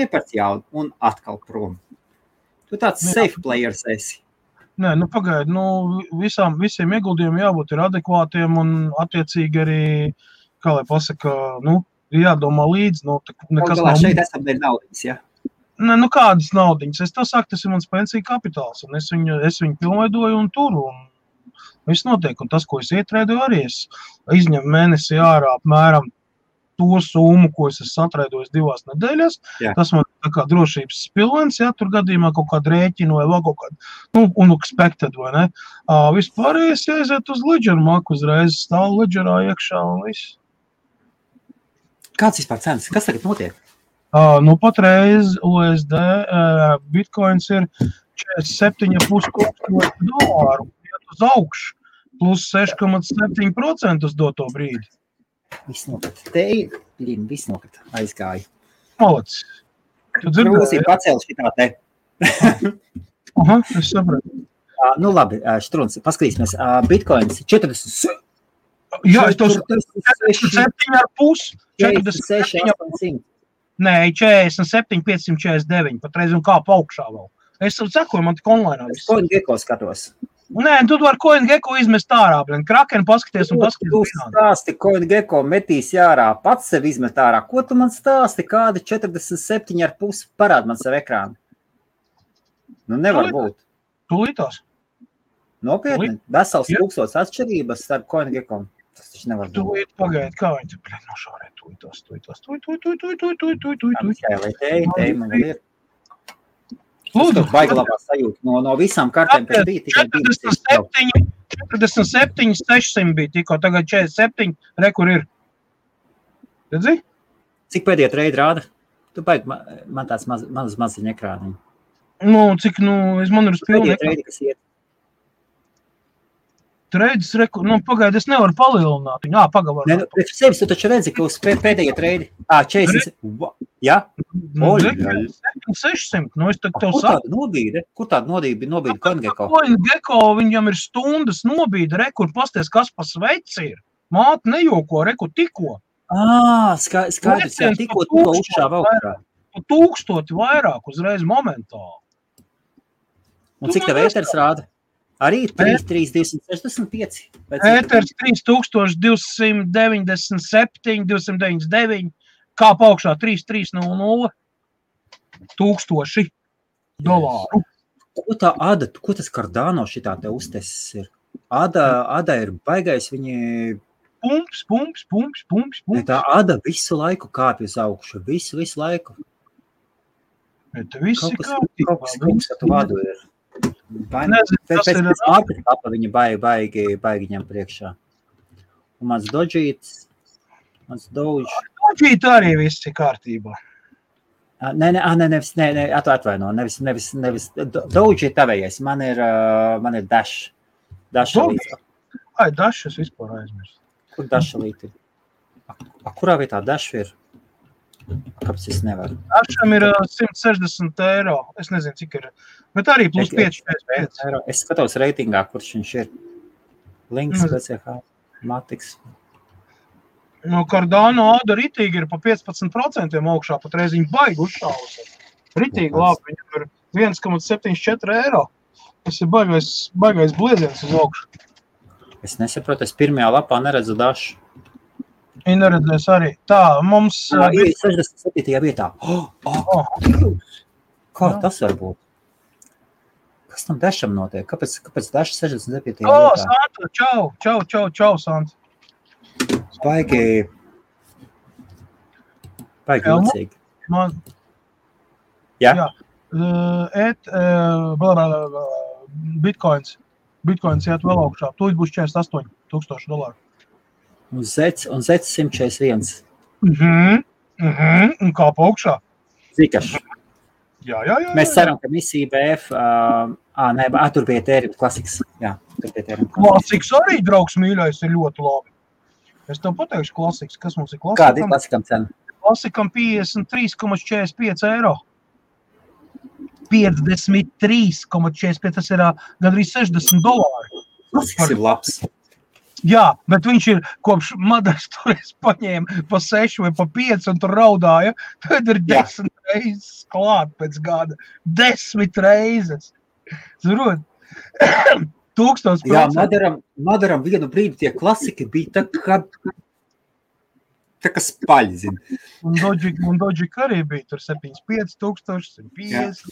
Speaker 1: iepērc jaunu, un atkal prom. Tu tāds safe players esi.
Speaker 2: Nē, pagaidi, visiem ieguldījumiem jābūt ir adekvātiem un attiecīgi arī, kā lai pasaka, jādomā līdz, nekas nav.
Speaker 1: Šeit esam dēļ naudiņas, jā?
Speaker 2: Nē, kādas naudiņas? Es tev saku, tas ir mans pensiju kapitāls, un es viņu pilnveidoju un turu, un viss notiek. Un tas, ko es ietrēdoju arī, es izņemu mēnesi ārā apmēram to summu, ko es satraidojis 2 nedēļas. Jā. Tas man tā kā drošības spilvens, ja tur gadījumā kaut kādu rēķinu vai vēl kaut kādu, unexpected, vai ne? Vispārējais jāiziet uz Ledger maku, uzreiz stāv Ledgerā iekšā un viss.
Speaker 1: Kāds vispār cenas? Kas tagad notiek?
Speaker 2: Patreiz USD Bitcoins ir 47,5 $, iet uz augšu, plus 6,7% uz doto brīdi.
Speaker 1: Viss nokat. Viss nokat. Aizgāja.
Speaker 2: Malacis. Tu dzirdēji?
Speaker 1: Krūsī pacēl šitā te.
Speaker 2: Es sapratu.
Speaker 1: Labi, Štruns, paskatīsimies. Bitcoins 40.
Speaker 2: Jā, es tos 47,5.
Speaker 1: 46,800.
Speaker 2: Nē, 47,549. Patreiz un kā pa augšā vēl. Es sakoju, man tik online.
Speaker 1: Es CoinGecko skatos.
Speaker 2: Nē, tu var CoinGecko izmest ārā, Kraken paskaties un paskaties.
Speaker 1: Tu stāsti, CoinGecko metīs ārā, pats sev izmet ārā. Ko tu man stāsti, kādi 47,5 parād man savu ekrānu? Nevar būt.
Speaker 2: Tūlītās.
Speaker 1: Nopietni? Vesels tūkstots atšķirības starp CoinGecko. Tas taču nevar būt.
Speaker 2: Tūlīt pagaid, kā viņi te nošaurē tūlītās.
Speaker 1: Lai teji, man vēl ir. Lūdzu, baigi labā sajūta no visām kartēm, kas bija tikai
Speaker 2: 47, 600 bija tikko, tagad 47, kur ir. Redzi?
Speaker 1: Cik pēdējie treidi rāda? Tu baigi, man tāds maziņa ekrāniņi.
Speaker 2: Man ir uz pilnu
Speaker 1: ekrānu. Treidi, kas iet?
Speaker 2: Treidis, pagaidi, es nevaru palielināt viņu. Pagavar.
Speaker 1: Priekš sevis, tu taču redzi, ka uz pēdējie treidi. 40. Jā?
Speaker 2: 600. Es tev
Speaker 1: saku. Kur tāda nobīde CoinGecko?
Speaker 2: CoinGecko, viņam ir stundas nobīde, kur pasties, kas pa sveci ir. Māte nejoko, kur tikko.
Speaker 1: Skaidrs, jā, tikko uzšāva augstā.
Speaker 2: 1000 vairāk uzreiz momentāli.
Speaker 1: Un cik tev ēters rāda? Arī 3,265.
Speaker 2: Ēters 3297, 299, kā paukšā 3,300, $1000.
Speaker 1: Ko tā Ada, ko tas Cardano šitā te uztesis ir? Ada ir baigais, viņi...
Speaker 2: Pumps.
Speaker 1: Tā Ada visu laiku kāpj uz augšu, visu laiku.
Speaker 2: Bet visi
Speaker 1: kaut kas tu vadu ir. Pēc market kapa viņa baigi ņem priekšā. Un mans Dodžīt
Speaker 2: arī viss ir kārtībā.
Speaker 1: Atvaino, nevis Dodžīt tavējais, man ir Dash. Dash
Speaker 2: es vispār aizmirstu.
Speaker 1: Kur Dash līti ir? Kurā vietā Dash ir? Kāpēc es nevaru?
Speaker 2: Dasham ir €160. Es nezinu, cik ir. Bet arī plus 5.
Speaker 1: Es skatos reitingā, kurš viņš ir. Links, BCH, Matiks.
Speaker 2: Cardano Ada ritīgi ir pa 15% augšā, pat reiz viņi baigi uzšāvus. Ritīgi labi, viņam ir €1,74. Tas ir baigais blieziens uz augšu.
Speaker 1: Es nesaprotu, es pirmajā lapā neredzu Dašu.
Speaker 2: Viņa neredzēs arī. Tā, mums...
Speaker 1: Ir 67. vietā. Kā tas var būt? Kas tam Dasham notiek? Kāpēc Daša 67. vietā?
Speaker 2: Santa, čau, Santa.
Speaker 1: Baigi jūcīgi. Jā?
Speaker 2: Bitcoins iet vēl augšā. Tūlīt būs $48,000.
Speaker 1: Un Zets 141.
Speaker 2: Un kā pa augšā?
Speaker 1: Zikaši.
Speaker 2: Jā.
Speaker 1: Mēs ceram, ka misija BF... tur bija Ethereum klasiks. Jā, tur bija Ethereum
Speaker 2: klasiks. Klasiks arī, draugs mīļais, ir ļoti labi. Es tev pateikšu klasiks. Kas mums ir klasikam?
Speaker 1: Kāda ir klasikam cena?
Speaker 2: Klasikam €53,45. 53,45. Tas ir gandrīz $60.
Speaker 1: Klasiks ir labs.
Speaker 2: Jā, bet viņš ir kopš Madars toreiz paņēma pa 6 vai pa 5 un tur raudāja. Tad ir 10 reizes klāt pēc gada. 10 reizes. Zurot? 1000%.
Speaker 1: Jā, Madaram vienu brīdi tie klasiki bija tā kā spaļi, zin.
Speaker 2: Un Dodžik arī bija tur 75,000, 150.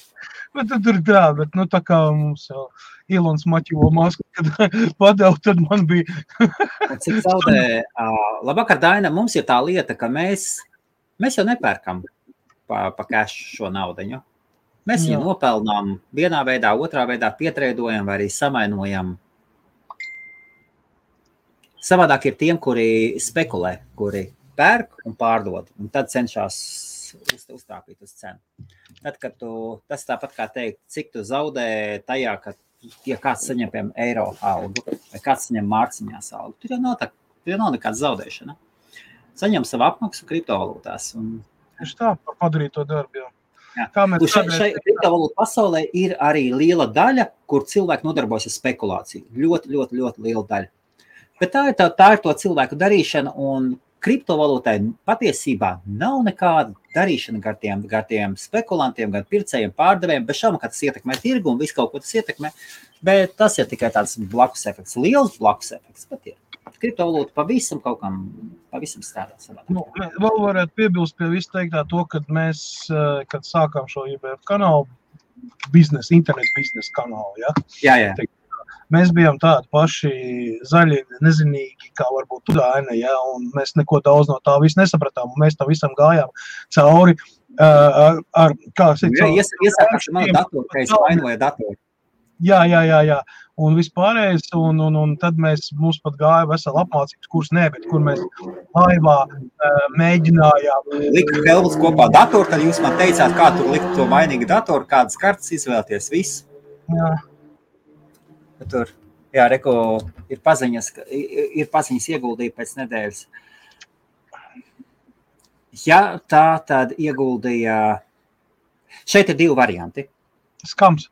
Speaker 2: Bet tur tā, bet tā kā mums jau Ilons Maķivo masku, kad padev, tad man bija.
Speaker 1: Cik zaudē, labvakar, Daina, mums ir tā lieta, ka mēs jau nepērkam pa cash šo naudiņu. Mēs viņu nopelnām vienā veidā, otrā veidā pietreidojam vai arī samainojam. Savādāk ir tiem, kuri spekulē, kuri pērk un pārdod, un tad cenšas uztrāpīt uz cenu. Tad, kad tas tāpat kā teikt, cik tu zaudē tajā, ka ja kāds saņem, piemēram, eiro algu, vai kāds saņem mārciņās algu, tur jau nav nekāda zaudēšana. Saņem savu apmaksu kriptovalūtās.
Speaker 2: Tieši tā, par padarīto darbu, jā.
Speaker 1: Šai kriptovalūtu pasaulē ir arī liela daļa, kur cilvēki nodarbojas ar spekulāciju. Ļoti, ļoti, ļoti liela daļa. Bet tā ir to cilvēku darīšana, un kriptovalūtai patiesībā nav nekāda darīšana gar tiem spekulantiem, gan pircējiem, pārdevējiem, bez šaubām, ka tas ietekmē tirgu un visu kaut ko tas ietekmē, bet tas ir tikai tāds blakus efekts, liels blakus efekts, bet ir. Kriptovalūta pavisam strādā savā.
Speaker 2: Vēl varētu piebilst pie visu teiktā to, kad mēs, kad sākām šo IBF kanālu, internet biznesa kanālu, ja?
Speaker 1: Jā.
Speaker 2: Mēs bijām tādi paši zaļi, nezinīgi, kā varbūt tu, Daina, ja? Un mēs neko daudz no tā visu nesapratām, un mēs tam visam gājām cauri.
Speaker 1: Iesākās manu datoru, ka es vainoju datoru.
Speaker 2: Jā. Un vispārējais, un tad mums pat gāja vesela apmācības kurs, bet kur mēs laivā mēģinājām.
Speaker 1: Liku Helmuts kopā datoru, tad jūs man teicāt, kā tur likt to vainīgu datoru, kādas kartas izvēlēties, visu.
Speaker 2: Jā.
Speaker 1: Tur, jā, reko, ir paziņas ieguldīja pēc nedēļas. Ja tā tad ieguldīja, šeit ir 2 varianti.
Speaker 2: Skams.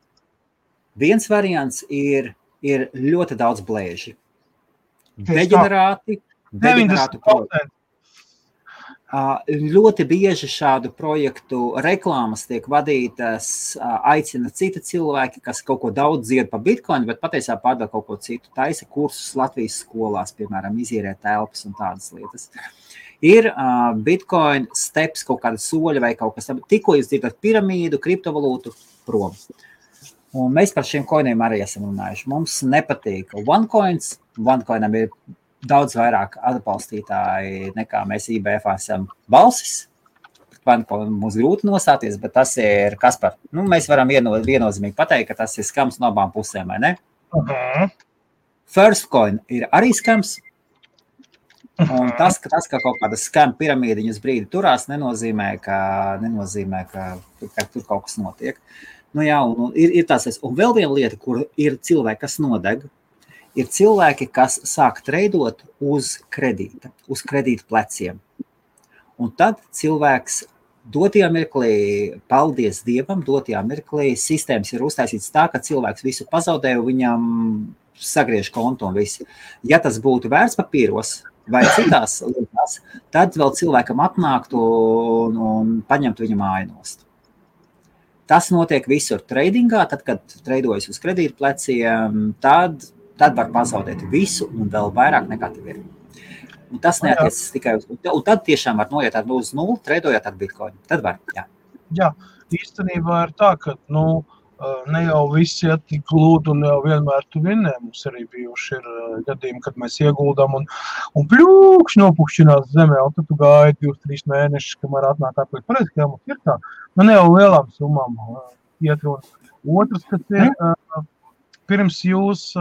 Speaker 1: Viens variants ir ļoti daudz blēži. Deģenerāti projekti. Ļoti bieži šādu projektu reklāmas tiek vadītas, aicina citi cilvēki, kas kaut ko daudz dzied pa Bitcoin, bet patiesībā pārdod kaut ko citu. Taisa kursus Latvijas skolās, piemēram, izīrē telpas un tādas lietas. Ir Bitcoin steps, kaut kāda soļa vai kaut kas tam. Tikko jūs dzirdat piramīdu, kriptovalūtu, prom. Un mēs par šiem koiniem arī esam runājuši. Mums nepatīk OneCoins. OneCoinam ir daudz vairāk atbalstītāji nekā mēs IBF esam balsis. OneCoin mums grūti nostāties, bet tas ir Kaspar. Mēs varam viennozīmīgi pateikt, ka tas ir skams no abām pusēm, vai ne? Firstcoin ir arī skams. Un tas, ka kaut kāda skam piramīdiņas brīdi turās, nenozīmē, ka tur kaut kas notiek. Ir tāds, un vēl viena lieta, kur ir cilvēki, kas nodeg, ir cilvēki, kas sāk treidot uz kredīta, uz kredīta pleciem. Un tad cilvēks dotajā mirklī, paldies Dievam, dotajā mirklī sistēmas ir uztaisīts tā, ka cilvēks visu pazaudē, viņam sagriež kontu un visu. Ja tas būtu vērtspapīros vai citās lietās, tad vēl cilvēkam atnāktu un paņemtu viņa māju nost. Tas notiek visur tradingā, tad, kad treidojas uz kredīta pleciem, tad var pazaudēt visu un vēl vairāk nekā tev ir. Un tas neatiecas tikai uz... Un tad tiešām var noiet uz 0, treidojot ar Bitcoin. Tad var, jā.
Speaker 2: Jā, īstenībā ir tā, ka, ne jau visi iet tik glūdi un jau vienmēr tu vinnē. Mums arī bijuši ir gadījumi, kad mēs ieguldām un pļūkšķi nopukšķinās zemē, un tad tu gāji 2-3 mēnešus, kamēr atnāk atpēc. Pareizi, ka mums ir tā. Ne jau lielām summām iet runa. Otrs, kas ir, pirms jūs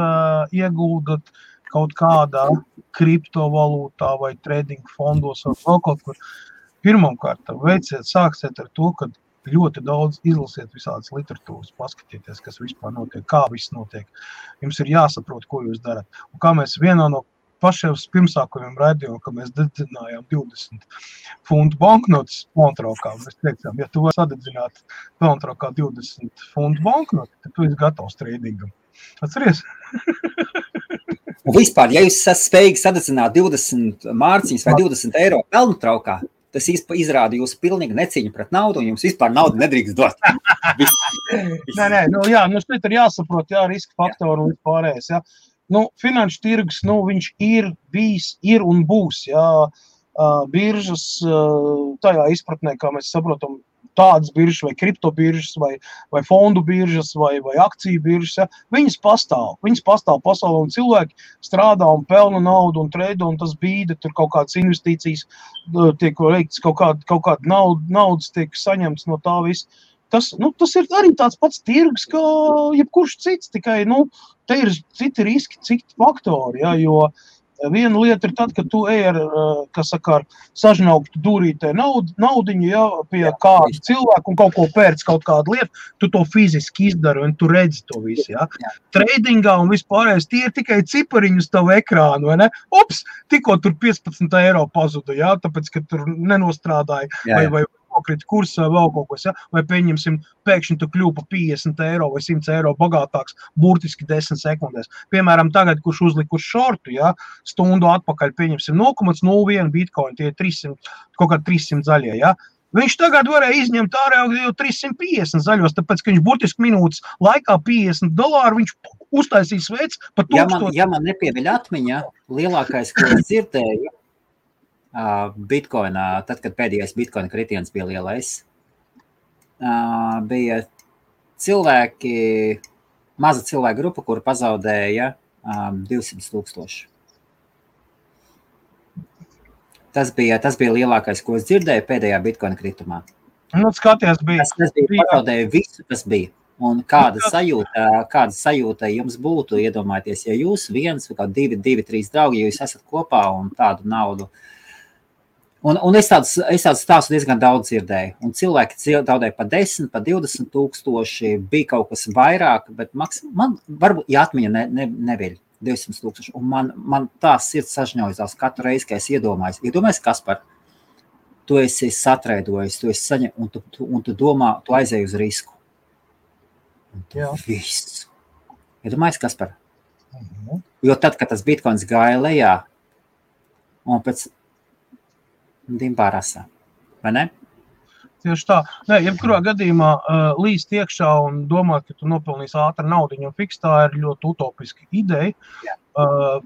Speaker 2: ieguldat kaut kādā kriptovalūtā vai trading fondos vai vēl kaut kur, pirmkārt, sāksiet ar to, ka ļoti daudz izlasiet visādas literatūras, paskatieties, kas vispār notiek, kā viss notiek. Jums ir jāsaprot, ko jūs darat. Un kā mēs vienā no pašiem pirmsākumiem raidījām, ka mēs dedzinājām 20 funtu banknotes pelntraukā. Mēs teicām, ja tu vari sadedzināt pelntraukā 20 funtu banknotes, tad tu esi gatavs tradingam. Atceries?
Speaker 1: Un vispār, ja jūs esat spējīgi sadedzināt 20 mārciņas vai 20 eiro pelntraukā, tas izrāda jūsu pilnīgi necīņu pret naudu, un jums vispār naudu nedrīkst dot.
Speaker 2: Šeit ir jāsaprot, riska faktori un vispārējais, finanšu tirgus, viņš ir bijis, ir un būs, biržas, tajā izpratnē, kā mēs saprotam, tādas biržas vai kriptobiržas vai fondu biržas vai akciju biržas, viņas pastāv pasaulē un cilvēki strādā un pelna naudu un treido un tas bīda, tur kaut kādas investīcijas tiek veikts, kaut kāda naudas tiek saņemts no tā viss. Tas ir arī tāds pats tirgus, kā jebkurš cits, tikai, te ir citi riski, citi faktori, jo viena lieta ir tad, kad tu ej ar sažnauktu dūrītē naudiņu, pie kādu cilvēku un kaut ko pērc kaut kādu lietu, tu to fiziski izdari un tu redzi to visu, Tradingā un vispārējais, tie ir tikai cipariņi uz tavu ekrānu, vai ne? Ups, tikko tur 15 eiro pazuda, tāpēc, ka tur nenostrādāja, vai nokrita kurs vai vēl kaut kas, vai pieņemsim, pēkšņi tu kļūpa 50 eiro vai 100 eiro bagātāks burtiski 10 sekundēs. Piemēram, tagad, kurš uzlika uz šortu, stundu atpakaļ pieņemsim 0,01 bitcoin, tie 300, kaut kā 300 zaļie, Viņš tagad varēja izņemt ārā jau 350 zaļos, tāpēc, ka viņš burtiski minūtes laikā $50, viņš uztaisīs veids pa 1000.
Speaker 1: Ja man nepieviļ atmiņā, lielākais, ko es dzirdēju, Bitcoinā, tad, kad pēdējais Bitcoina kritiens bija lielais, bija maza cilvēku grupa, kura pazaudēja 200,000. Tas bija lielākais, ko es dzirdēju pēdējā Bitcoina kritumā.
Speaker 2: Nu, skaties, bija.
Speaker 1: Tas bija pazaudēju visu, kas bija. Un kāda sajūta jums būtu, iedomājieties, ja jūs viens vai kā 2, 3 draugi, ja jūs esat kopā un tādu naudu. Un es tādu stāstu diezgan daudz dzirdēju. Un cilvēki zaudēja pa 10, pa 20 tūkstoši, bija kaut kas vairāk, bet man varbūt, ja atmiņa neviļ 200 tūkstoši. Un man tā sirds sažņaujās katru reizi, ka es iedomājos, Kaspar, tu esi satraidojis, tu esi saņem, un tu domā, tu aizēji uz risku. Un tu visu. Iedomājies, Kaspar? Jo tad, kad tas bitcoins gāja lejā, un pēc dimbā rasā, vai ne?
Speaker 2: Tieši tā. Nē, jebkurā gadījumā līst iekšā un domāt, ka tu nopelnīsi ātri naudiņu un fiks, tā ir ļoti utopiska ideja.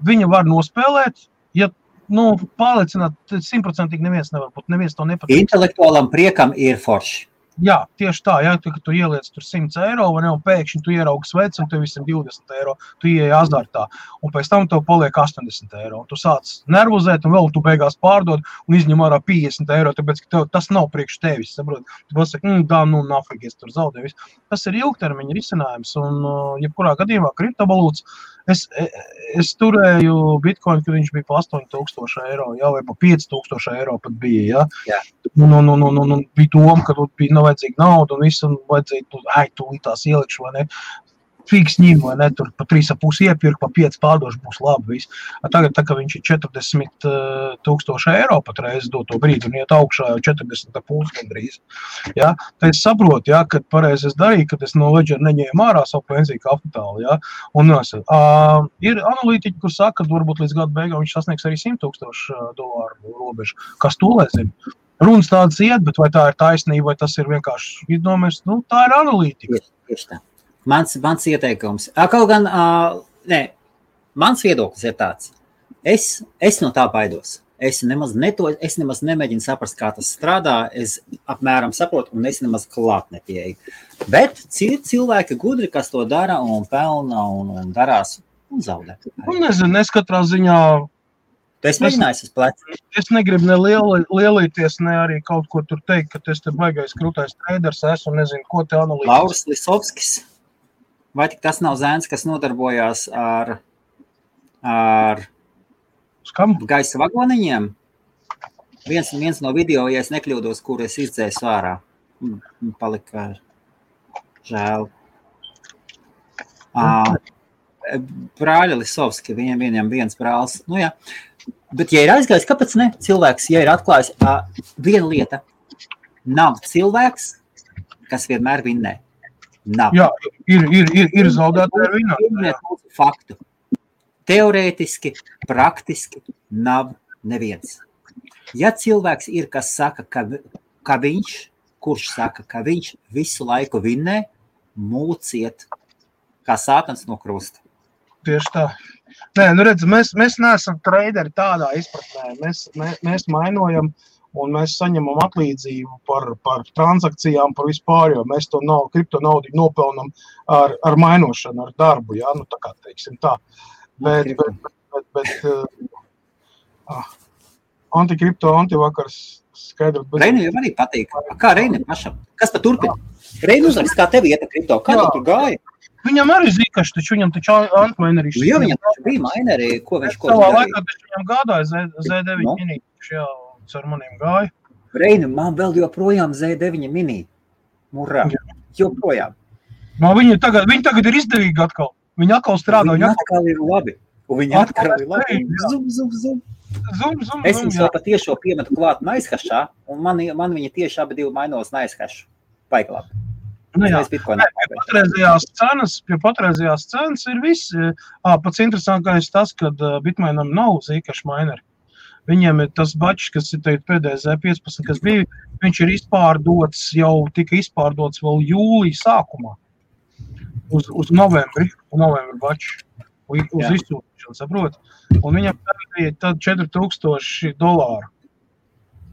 Speaker 2: Viņa var nospēlēt, ja pārliecināt 100% neviens nevar būt, neviens to nepatīk.
Speaker 1: Intelektuālam priekam ir forši.
Speaker 2: Jā, tieši tā, ja tu ieliec tur 100 eiro, vai ne, un pēkšņi tu ieraugi sveci, un tev visam 20 eiro, tu ieeji azartā, un pēc tam tev paliek 80 eiro, un tu sāc nervozēt, un vēl tu beigās pārdod, un izņem ārā 50 eiro, tāpēc, ka tas nav priekš tevis, saprot? Tu pasaki, nafīgi, es tur zaudēju. Tas ir ilgtermiņa risinājums, un jebkurā gadījumā kriptovalūtas, es turēju bitcoin, kad viņš bija pa 8000 eiro, jā, vai pa 5000 eiro pat bija, jā. Bija doma, ka bija nav vajadzīga nauda un visu, un vajadzēja, tūlīt tās ielikšu, vai ne, fiks ņem, vai ne, tur pa 3,5 iepirku, pa 5 pārdošu būs labi viss. Tagad, tā kā viņš ir 40,000 eiro patreiz doto brīdi, un iet augšā jau 40,5 gandrīz, jā, tad es saprotu, jā, kad pareizi es darīju, kad es no Ledger neņēmu ārā savu pensiju kapitālu, jā, un ir analītiķi, kur saka, ka varbūt līdz gada beigām viņš sasniegs arī $100,000 robežu, kas to lai zina. Runas tādas iet, bet vai tā ir taisnība, vai tas ir vienkārši iedomājies, tā ir analītika.
Speaker 1: Tieši tā. Mans ieteikums. Kaut gan, mans viedoklis ir tāds. Es no tā baidos. Es nemaz nemēģinu saprast, kā tas strādā. Es apmēram saprotu, un es nemaz klāt nepieeju. Bet cilvēki gudri, kas to dara un pelna un darās un zaudē.
Speaker 2: Nezinu, es katrā ziņā...
Speaker 1: Tu esi mēģinājis uz plecu?
Speaker 2: Es negribu ne lielīties, ne arī kaut ko tur teikt, ka es te baigais krūtais traders esmu un nezinu, ko te analītis.
Speaker 1: Lauris Lisovskis. Vai tik tas nav zēns, kas nodarbojās ar gaisa vagoniņiem? Viens no video, ja es nekļūdos, kur es izdzēsu ārā. Palika žēl. Brāļa Lisovski, viņam viens brālis. Nu jā. Bet, ja ir aizgājis, kāpēc ne? Cilvēks, ja ir atklājis viena lieta, nav cilvēks, kas vienmēr vinnē. Nav.
Speaker 2: Jā, ir zaudētāji ar vinnā.
Speaker 1: Faktu. Teorētiski, praktiski nav neviens. Ja cilvēks ir, kas saka, kurš saka, ka viņš visu laiku vinnē, mūciet kā sātans no krusta.
Speaker 2: Tieši tā. Nē, redz, mēs neesam traderi tādā izpratnē. Mēs mainojam un mēs saņemam atlīdzību par transakcijām, par vispār, jo mēs to kripto naudu nopelnam ar mainošanu, ar darbu, jā, tā kā teiksim tā. Bet antikripto, antivakars skaidrs.
Speaker 1: Reini jau arī patīk. Kā Reini pašam? Kas pa turpina? Reini uzrakst, kā tev ieta kripto? Kā tu tur gāja?
Speaker 2: Viņam arī zikaši, taču viņam taču antmainerī.
Speaker 1: Jā, viņam taču bija mainerī, ko viņš
Speaker 2: savā laikā, taču viņam gādāja Z9 mini, jā, ar maniem gāja.
Speaker 1: Reini, man vēl joprojām Z9 mini. Murā, joprojām.
Speaker 2: Viņi tagad ir izdevīgi atkal. Viņi atkal strādā.
Speaker 1: Viņi atkal ir labi. Zum. Es viņus vēl patiešo piemetu klāt naizhašā, un man viņa tieši abi divi mainos naizhašu. Baigi labi.
Speaker 2: Pie patreizējās cenas ir viss. Pats interesantākais tas, ka Bitmainam nav zīkaši maineri. Viņiem ir tas bačs, kas ir pēdējais Z15, kas bija, viņš ir izpārdots, jau tika izpārdots vēl jūlija sākumā. Uz novembri bačs. Uz izsūtīšanu, saprot? Un viņam bija tad $4,000.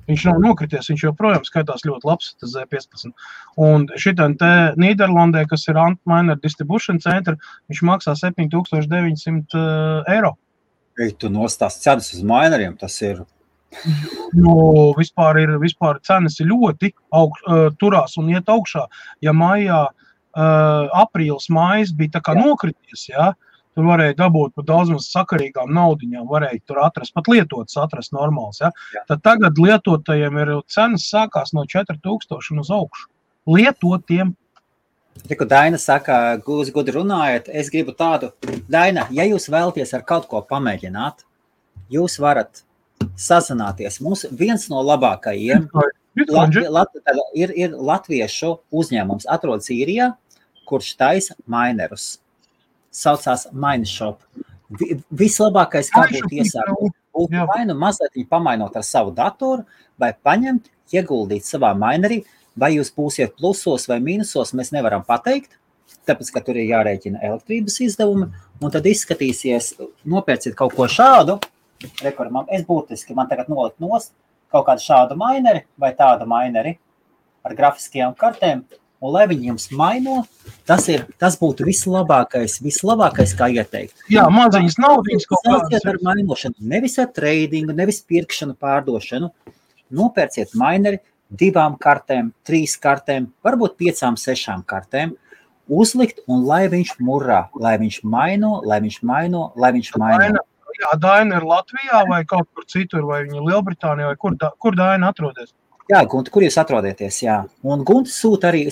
Speaker 2: Viņš nav nokrities, viņš joprojām skaitās ļoti labs, tas Z15. Un šitam te Nīderlandē, kas ir Antminer Distribution Center, viņš maksā $7,900.
Speaker 1: Tu nostās cenas uz mineriem, tas ir
Speaker 2: Jo vispār cenas ir ļoti turās un iet augšā. Ja maijā, aprīlis, mājas bija tā kā nokrities, ja, tur varēja dabūt par daudz maz sakarīgām naudiņām, varēja tur atrast, pat lietotas atrast normāls, ja. Tad tagad lietotajiem ir cenas sākās no 4000 un uz augšu. Lietotiem.
Speaker 1: Tiku Daina saka, gūs gudri runājat, es gribu tādu. Daina, ja jūs vēlaties ar kaut ko pamēģināt, jūs varat sazināties. Mums viens no labākajiem ir latviešu uzņēmums, atrodas Īrijā, kurš taisa mainerus. Saucās Mineshop. Vislabākais, kā būtu iesākt, būtu vai nu mazliet pamainot ar savu datoru, vai paņemt, ieguldīt savā minerī, vai jūs būsiet plusos vai mīnusos, mēs nevaram pateikt, tāpēc, ka tur ir jārēķina elektrības izdevumi, un tad izskatīsies, nopērciet kaut ko šādu, es būtiski, man tagad nolikt nost kaut kādu šādu mineri vai tādu mineri ar grafiskajām kartēm, un lai viņi jums maino, tas būtu vislabākais, kā ieteikt.
Speaker 2: Jā, maziņas naudiņas kaut
Speaker 1: kādas. Ar mainošanu, nevis ar tradingu, nevis pirkšanu, pārdošanu. Nopērciet mineri 2 kartēm, 3 kartēm, varbūt 5, 6 kartēm, uzlikt un lai viņš murrā, lai viņš maino.
Speaker 2: Jā, Daina ir Latvijā vai kaut kur citur, vai viņa Lielbritānijā, vai kur Daina atrodas?
Speaker 1: Jā, Gunti, kur jūs atrodaties, jā. Un Gunti sūta arī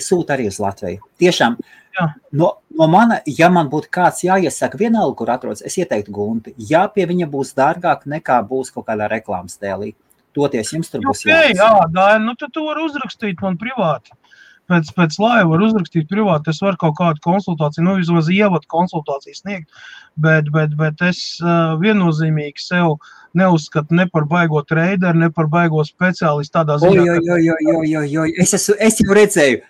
Speaker 1: uz Latviju. Tiešām, no mana, ja man būtu kāds jāiesaka vienalga, kur atrodas, es ieteiktu Gunti. Jā, pie viņa būs dārgāk nekā būs kaut kādā reklāmas tēlī. Toties jums tur būs
Speaker 2: jāsaka. Jā, Daina, nu tad tu vari uzrakstīt man privāti. Pēc laiva var uzrakstīt privāti, es varu kaut kādu konsultāciju, vismaz ievadu konsultāciju sniegt, bet es viennozīmīgi sev neuzskatu ne par baigo treideru, ne par baigo speciālistu tādā ziņā.
Speaker 1: Es jau redzēju,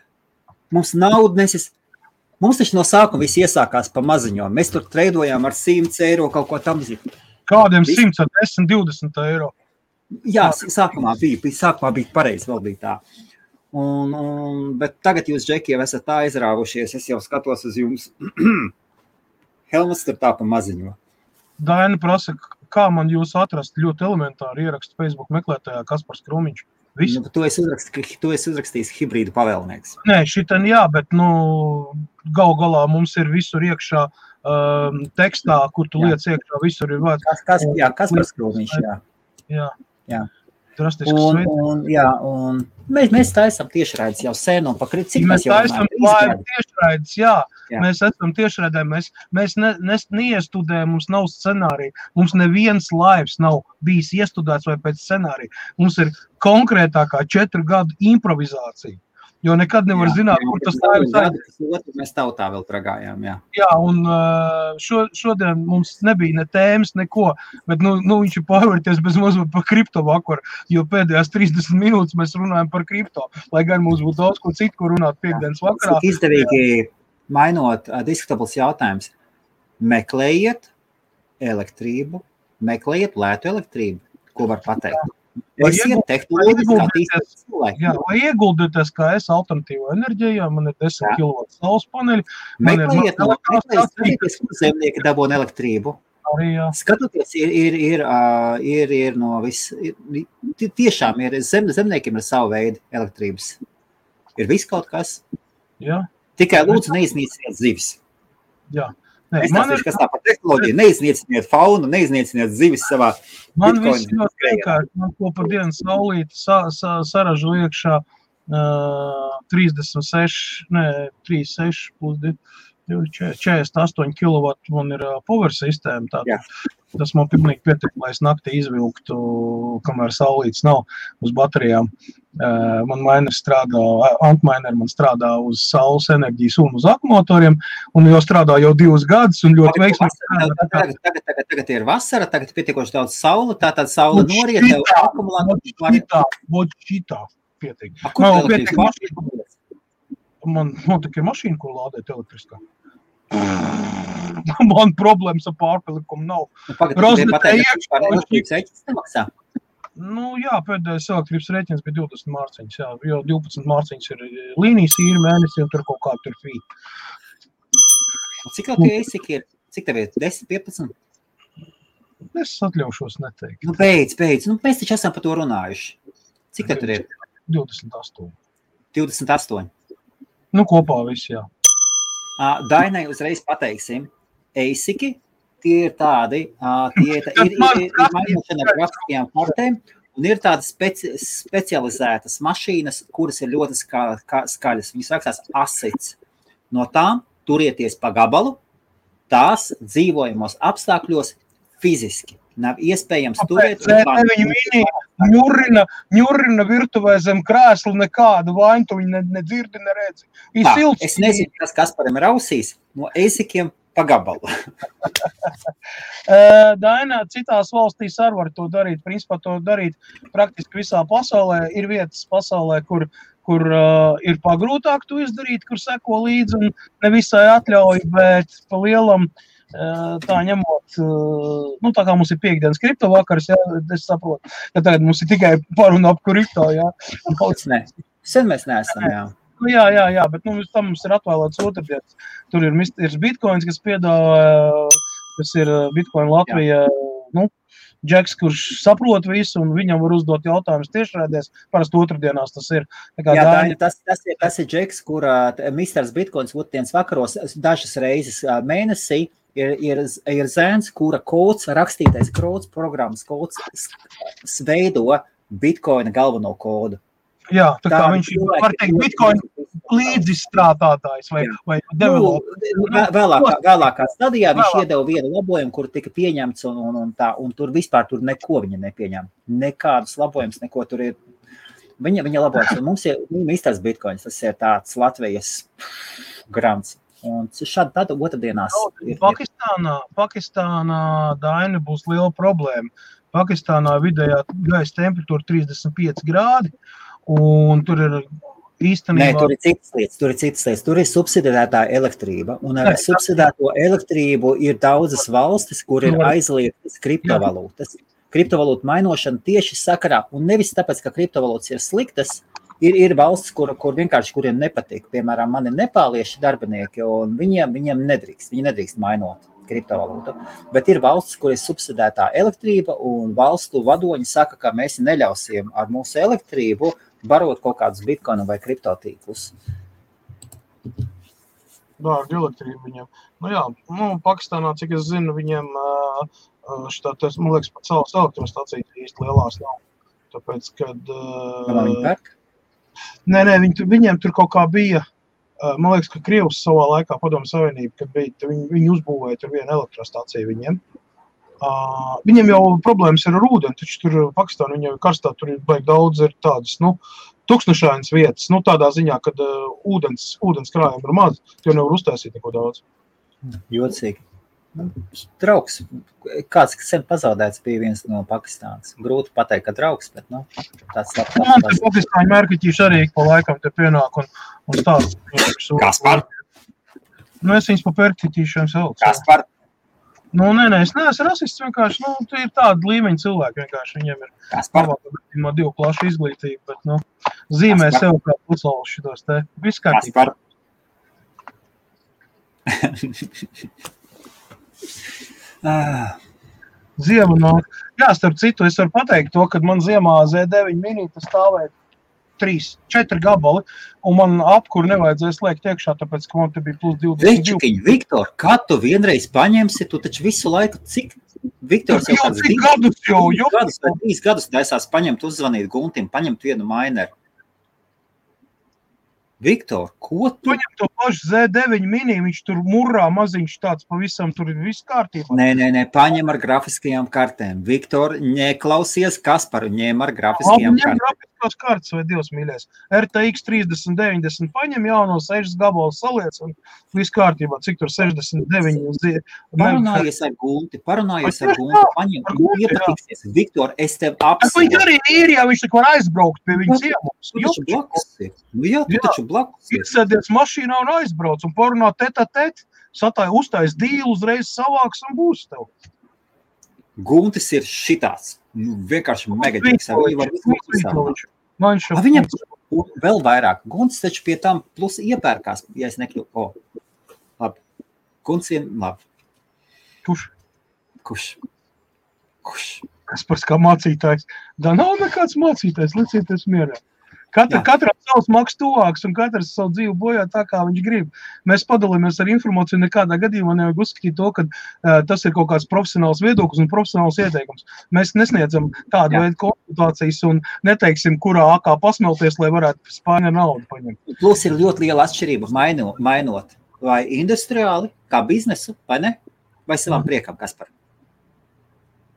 Speaker 1: mums nauda nesis, mums taču no sākuma viss iesākās pa maziņo, mēs tur treidojām ar 100 eiro kaut ko tam zīm.
Speaker 2: Kādiem 100, ar 10, 20 eiro?
Speaker 1: Jā, sākumā bija pareizi, vēl bija tā. Bet tagad jūs, Džeki, jau esat tā aizrāvušies, es jau skatos uz jums. Helmas tur tā pa maziņo.
Speaker 2: Daina prasa, kā man jūs atrast, ļoti elementāri ierakstu Facebook meklētājā Kaspars Krūmiņš.
Speaker 1: Nu, tu esi uzrakstījis hibrīdu pavēlnieks.
Speaker 2: Nē, šitan jā, bet gal galā mums ir visur iekšā tekstā, kur tu liec iekšā, visur ir vārds.
Speaker 1: Kaspars Krūmiņš,
Speaker 2: jā.
Speaker 1: Un mēs taisam tiešraides jau sen un pakrit, cik
Speaker 2: mēs taisam tiešraides, jā. Mēs esam tiešraidē, mēs neiestudējam, mums nav scenārija, mums neviens laivs nav bijis iestudēts vai pēc scenārija. Mums ir konkrētākā 4 gadu improvizācija, jo nekad nevar zināt, kur tas laivs aizies.
Speaker 1: Mēs tautā vēl pragājām, jā.
Speaker 2: Jā, un šodien mums nebija ne tēmas, neko, bet viņš ir pārvērties bez mazliet par kripto vakaru, jo pēdējās 30 minūtes mēs runājam par kripto, lai gan mums būtu daudz ko citu, ko runāt piekdienas vakarā.
Speaker 1: Cik izdevīgi mainot diskutables jautājums, meklējiet elektrību, meklējiet lētu elektrību, ko var pateikt.
Speaker 2: Vai ieguldieties, kā es alternatīvo enerģijā, man ir 10 kW saules paneļi.
Speaker 1: Meklējiet, kur zemnieki dabūna elektrību.
Speaker 2: Arī, jā.
Speaker 1: Skatoties, ir no viss, tiešām ir, zemniekiem ir savu veidu elektrības. Ir viss kaut kas.
Speaker 2: Jā.
Speaker 1: Tikai lūdzu neiznīciniet zivis.
Speaker 2: Jā.
Speaker 1: Es nezinu, kas tā par tehnoloģiju, neiznīciniet faunu, neiznīciniet zivis savā.
Speaker 2: Man viss ļoti vienkārši, man ko par dienu saulīti saražu iekšā 36 plus 48 kW man ir power sistēma. Tātad. Tas man pilnīgi pietiek, lai es naktī izvilktu, kamēr saulītes nav uz baterijām. Man Antminer man strādā uz saules enerģijas un uz akumumatoriem, un jau strādā jau 2 gadus, un ļoti veiksmīgi.
Speaker 1: Tagad ir vasara, tagad ir pietiekoši daudz saule, tātad saule noriet, tev
Speaker 2: akumulātori. Šitā pietiek. Man tikai mašīna, ko lādēt elektriskā. Man problēmas ar pārpilikumu nav. Jā, pēdējais elektrības rēķins bija 20 mārciņas, jā, jo 12 mārciņas ir līnijas īri mēnesi, un tur kaut kā tur fīt.
Speaker 1: Cik tev ir? Cik tev ir? 10, 15?
Speaker 2: Es atļaušos neteikt.
Speaker 1: Nu, beidz. Nu, mēs taču esam par to runājuši. Cik tad tur ir?
Speaker 2: 28.
Speaker 1: 28.
Speaker 2: Nu, kopā viss, jā.
Speaker 1: Dainai uzreiz pateiksim. Eisiki, tie ir tādi, ir mainošana ar grafiskajām kartēm, un ir tādas specializētas mašīnas, kuras ir ļoti skaļas. Viņas rakstās asits. No tām turieties pa gabalu, tās dzīvojamos apstākļos fiziski. Nav iespējams turēt.
Speaker 2: Viņa ņurina virtuvē zem krēsla nekādu vainu, tu viņa nedzirdi, neredzi.
Speaker 1: Es nezinu, kas Kasparam ir ausīs, no eisikiem pa gabalu.
Speaker 2: Dainā, citās valstīs arī var to darīt. Principā to darīt praktiski visā pasaulē. Ir vietas pasaulē, kur ir pagrūtāk to izdarīt, kur seko līdzi un nevisai atļauj, bet pa lielam tā ņemot, nu tā kā mums ir piekdienas kripto vakars, jā, es saprotu, ka tagad mums ir tikai paruna ap kripto, jā.
Speaker 1: Sen mēs neesam, jā.
Speaker 2: Nu, jā, bet nu, tam mums ir atvēlēts otrdienas. Tur ir Bitcoins, kas piedāvā, kas ir Bitcoin Latvija, nu, Džeks, kurš saprot visu, un viņam var uzdot jautājumus tiešraidēs, parasti otrdienās tas ir.
Speaker 1: Tas ir Džeks, kurā Misters Bitcoins otrdienas vakaros dažas reizes mēnesī ir zēns, kura kods, rakstītais kods, programmas kods veido Bitcoina galveno kodu.
Speaker 2: Jā, tā kā viņš var teikt Bitcoin līdzizstrādātājs vai developer.
Speaker 1: Vēlākā stadijā viņš iedeva vienu labojumu, kur tika pieņemts un tur vispār tur neko viņa nepieņem. Nekādus labojumus, neko tur ir. Viņa labojums. Un mums ir Misters Bitcoins, tas ir tāds Latvijas grants. Un šādi tāda otrdienās ir.
Speaker 2: Pakistānā Daina būs liela problēma. Pakistānā vidējā gaisa temperatūra 35 grādi. Un tur ir īstenībā...
Speaker 1: Nē, tur ir citas lietas. Tur ir subsidētā elektrība. Un ar subsidēto elektrību ir daudzas valstis, kur ir aizliegtas kriptovalūtas. Kriptovalūtu mainošana tieši sakarā. Un nevis tāpēc, ka kriptovalūtas ir sliktas, ir valstis, kur vienkārši kuriem nepatīk. Piemēram, man ir nepālieši darbinieki, un viņiem nedrīkst mainot kriptovalūtu. Bet ir valstis, kur ir subsidētā elektrība, un valstu vadoņi saka, ka mēs neļausim ar mūsu elektrību barot kaut kādus bitkoinu vai kriptotīklus.
Speaker 2: Dārgi elektrība viņiem. Nu jā, Pakistānā, cik es zinu, viņiem man liekas, pat savas elektrostacijas īsti lielās nav. Tāpēc, kad...
Speaker 1: Viņi pērk?
Speaker 2: Nē, viņiem tur kaut kā bija, man liekas, ka Krievs savā laikā Padomju Savienība, kad bija, viņi uzbūvēja tur vienu elektrostaciju viņiem. Viņiem jau problēmas ir ar ūdeni, taču tur Pakistāna, viņam karstā tur ir baigi daudz ir tādas, tukšņašainas vietas, tādā ziņā, kad ūdens krājumi ir maz, jo nevar uztaisīt neko daudz.
Speaker 1: Jocīgi. Draugs, kāds sen pazaudēts bija viens no Pakistānas. Grūti pateikt, ka draugs, bet, tāds labs.
Speaker 2: Man te Pakistāņu mērķiķīši arī pa laikam te pienāk un stāst.
Speaker 1: Kaspar?
Speaker 2: Es viņus pa pērķiķīšiem sauc.
Speaker 1: Kaspar?
Speaker 2: Nē, es neesmu rasists, vienkārši, tie ir tādi līmeņi cilvēki, vienkārši viņiem ir divu klašu izglītība, bet, zīmē sev kā pucelus šitos te. Viss kārtībā. Ziema nāk. Jā, starp citu, es varu pateikt to, kad man ziemā Z9 minīte stāvēja 3-4 gabali, un man apkuru nevajadzēs liekt iekšā, tāpēc, ka man te bija plus 22.
Speaker 1: Večukiņ, Viktor, kad tu vienreiz paņemsi, tu taču visu laiku, cik Viktors jau kāds 3 gadus taisās paņemt, uzzvanīt Guntim, paņemt vienu maineru. Viktor, ko tu?
Speaker 2: Paņem to pašu Z9 mini, viņš tur murrā maziņš tāds pavisam, tur ir viss kārtībā.
Speaker 1: Nē, paņem ar grafiskajām kartēm. Viktor, neklausies Kasparu, ņem ar grafiskajām kartēm.
Speaker 2: Grafiskās kartes vai Dievs mīļais. RTX 3090 paņem jauno 6 gabalu saliec un viss kārtībā. Cik tur 69?
Speaker 1: Parunājies ar Gunti, paņem, iepatiksies. Viktor, es tev apsolu.
Speaker 2: Viņš arī ir, ja viņš tik var aizbraukt pie viņa ciemos.
Speaker 1: Tu taču blakus ir.
Speaker 2: Iesēdies mašīnā un aizbrauc un parunā tet, uztais dīlu, uzreiz savāks un būs tev.
Speaker 1: Guntis ir šitāds. Vienkārši megaģiks. Viņam vēl vairāk. Guntis taču pie tam plus iepērkās, ja es nekļūtu. Labi. Guntis ir labi.
Speaker 2: Kurš? Kaspars kā mācītājs. Da nav nekāds mācītājs, licieties mierā. Katram savs maks tuvāks un katrs savu dzīvi bojā tā, kā viņš grib. Mēs padalāmies ar informāciju, nekādā gadījumā nevajag uzskatīt to, ka tas ir kaut kāds profesionāls viedoklis un profesionāls ieteikums. Mēs nesniedzam tādu veidu konsultācijas un neteiksim, kurā akā pasmelties, lai varētu spāņa naudu paņemt.
Speaker 1: Plus ir ļoti liela atšķirība mainot vai industriāli, kā biznesu, vai ne? Vai savām priekam, Kaspar?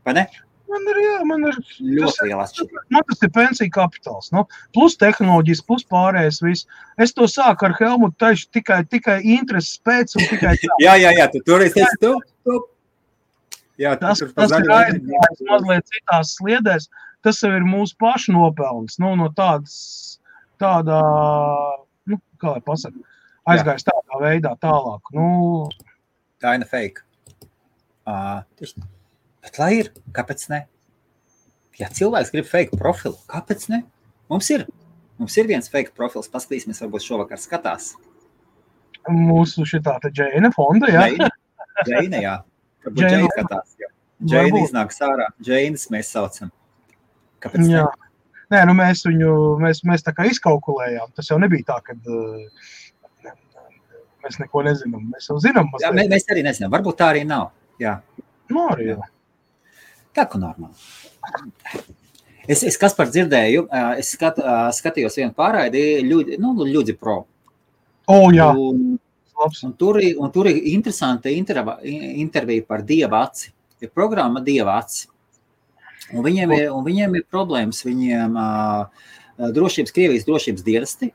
Speaker 1: Vai ne?
Speaker 2: Man ir
Speaker 1: ļoti liela atšķirība.
Speaker 2: Man tas ir pensija kapitāls, nu, plus tehnoloģijas, plus pārējais viss. Es to sāku ar Helmutu taišu tikai intereses pēc un tikai tā.
Speaker 1: Jā, tu toreiz teici tu. Jā,
Speaker 2: tas ir aizgājis mazliet citās sliedēs. Tas jau ir mūsu pašu nopelns, nu, no tādā, nu, kā lai pasaka, aizgājis tādā veidā tālāk. Nu,
Speaker 1: Kaina fake. Bet lai ir, kāpēc ne? Ja cilvēks grib fake profilu, kāpēc ne? Mums ir viens fake profils, paskatīsimies, varbūt šovakar skatās.
Speaker 2: Mūsu šitā te Džeina fonda, jā?
Speaker 1: Džeina, jā. Varbūt Džeina skatās, jā. Džeina iznāks ārā, Džeinas mēs saucam. Kāpēc ne?
Speaker 2: Jā. Nē, nu mēs tā kā izkalkulējām. Tas jau nebija tā, kad mēs neko nezinām. Mēs jau zinām.
Speaker 1: Jā, mēs arī nezinām. Varbūt tā arī nav. Jā.
Speaker 2: Nu, arī jā.
Speaker 1: Tā, ka normāli. Es Kaspar dzirdēju, es skatījos vienu pārraidi, Ļudzi Pro.
Speaker 2: Jā.
Speaker 1: Un tur ir interesanta intervija par Dieva aci. Ir programma Dieva aci. Un viņiem ir problēmas. Viņiem Krievijas drošības dienesti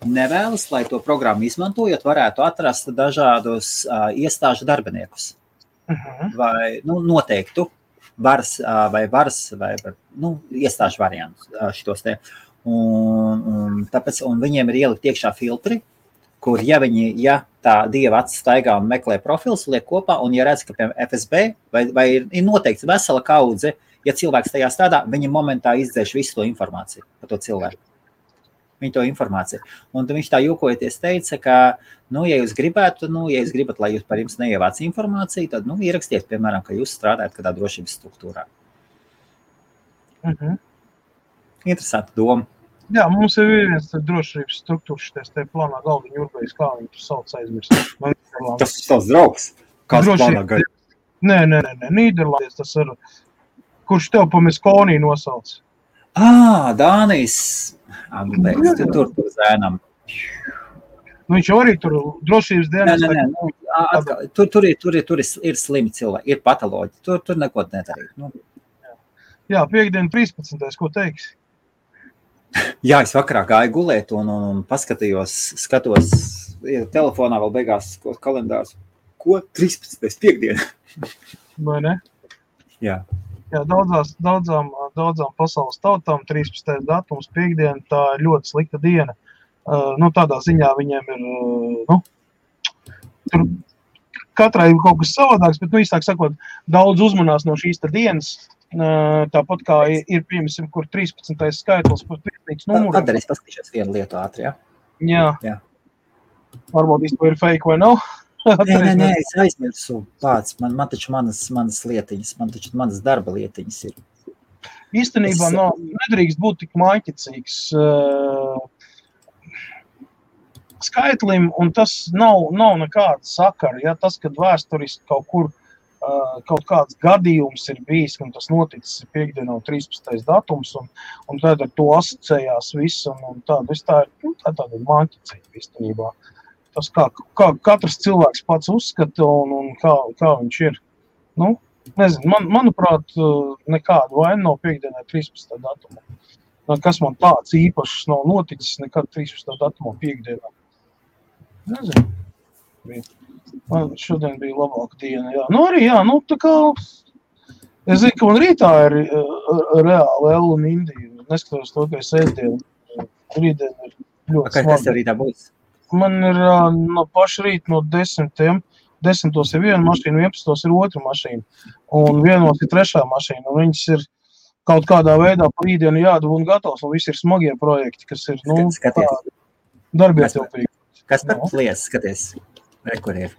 Speaker 1: nevēlas, lai to programmu izmantojot, varētu atrast dažādus iestāžu darbiniekus. Vai noteiktu varas vai iestāžu variantus šitos te. Un viņiem ir ielikt iekšā filtri, kur ja tā Dieva acis staigā un meklē profils, liek kopā, un ja redz, ka piemēram FSB vai ir noteikts vesela kaudze, ja cilvēks tajā strādā, viņi momentā izdzēš visu to informāciju par to cilvēku. Viņa to informāciju. Un viņš tā jokojoties teica, ka, ja jūs gribētu, ja jūs gribat, lai jūs par jums neievāc informāciju, tad, ierakstiet, piemēram, ka jūs strādājat kādā drošības struktūrā. Interesanti doma.
Speaker 2: Jā, mums ir viens drošības struktūras šitais te plānā galdiņu Urbējs, kā viņi tur sauc aizmirst.
Speaker 1: Tas ir tavs draugs? Kāds plānā gaļa?
Speaker 2: Nē, Nīderlandes tas ir, kurš tev pa Miskonī nosauc.
Speaker 1: Dānijas. Tur zēnam.
Speaker 2: Viņš arī tur drošības dienas.
Speaker 1: Tur ir slimi cilvēki, ir patoloģi. Tur neko nedarīt.
Speaker 2: Jā, piekdien 13. Ko teiksi?
Speaker 1: Jā, es vakarā gāju gulēt un skatos telefonā vēl beigās kalendārs. Ko? 13. piekdien?
Speaker 2: Vai ne?
Speaker 1: Jā.
Speaker 2: Jā, daudzām pasaules tautām 13. datums piekdien, tā ir ļoti slikta diena. Tādā ziņā viņiem ir, tur katrai ir kaut kas savādāks, bet, īstāk sakot, daudz uzmanās no šīs dienas, tāpat kā ir, piemēram, kur 13. skaitlis, kur pietnīgs numurs.
Speaker 1: Tad es paskatīšos vienu lietu ātri, jā?
Speaker 2: Jā. Varbūt īsti ir fake vai nav?
Speaker 1: Nē, es aizmirsu pats. Man taču manas lietiņas, manas darba lietiņas ir.
Speaker 2: Īstenībā nedrīkst būt tik māķicīgs skaitlim, un tas nav nekāda sakara. Ja? Tas, kad vēsturiski kaut kur kaut kāds gadījums ir bijis, un tas noticis piekdienā 13. datums, un tad ar to asociējās viss, un tā ir tāda māķicīga īstenībā. Tas, kā katrs cilvēks pats uzskata un kā viņš ir. Nezinu, manuprāt, nekāda vaina nav piekdienā 13. datumā. Kas man tāds īpašs nav noticis nekad 13. datumā piekdienā. Nezinu. Man šodien bija labāka diena, jā. Arī, jā, tā kā... Es zinu, ka man rītā ir reāli L un Indija. Neskatos to, ka es ēdienu. Rītdien ir ļoti smagi.
Speaker 1: Kas tev rītā būs?
Speaker 2: Man ir no paša rīta no 10. 10. ir viena mašīna, 11. ir otra mašīna. Un 1. ir trešā mašīna. Un viņas ir kaut kādā veidā pa rītdienu jādabū un gatavs. Un visi ir smagie projekti, kas ir, darbietilpīgi.
Speaker 1: Kas par lies, skaties? Kur ir?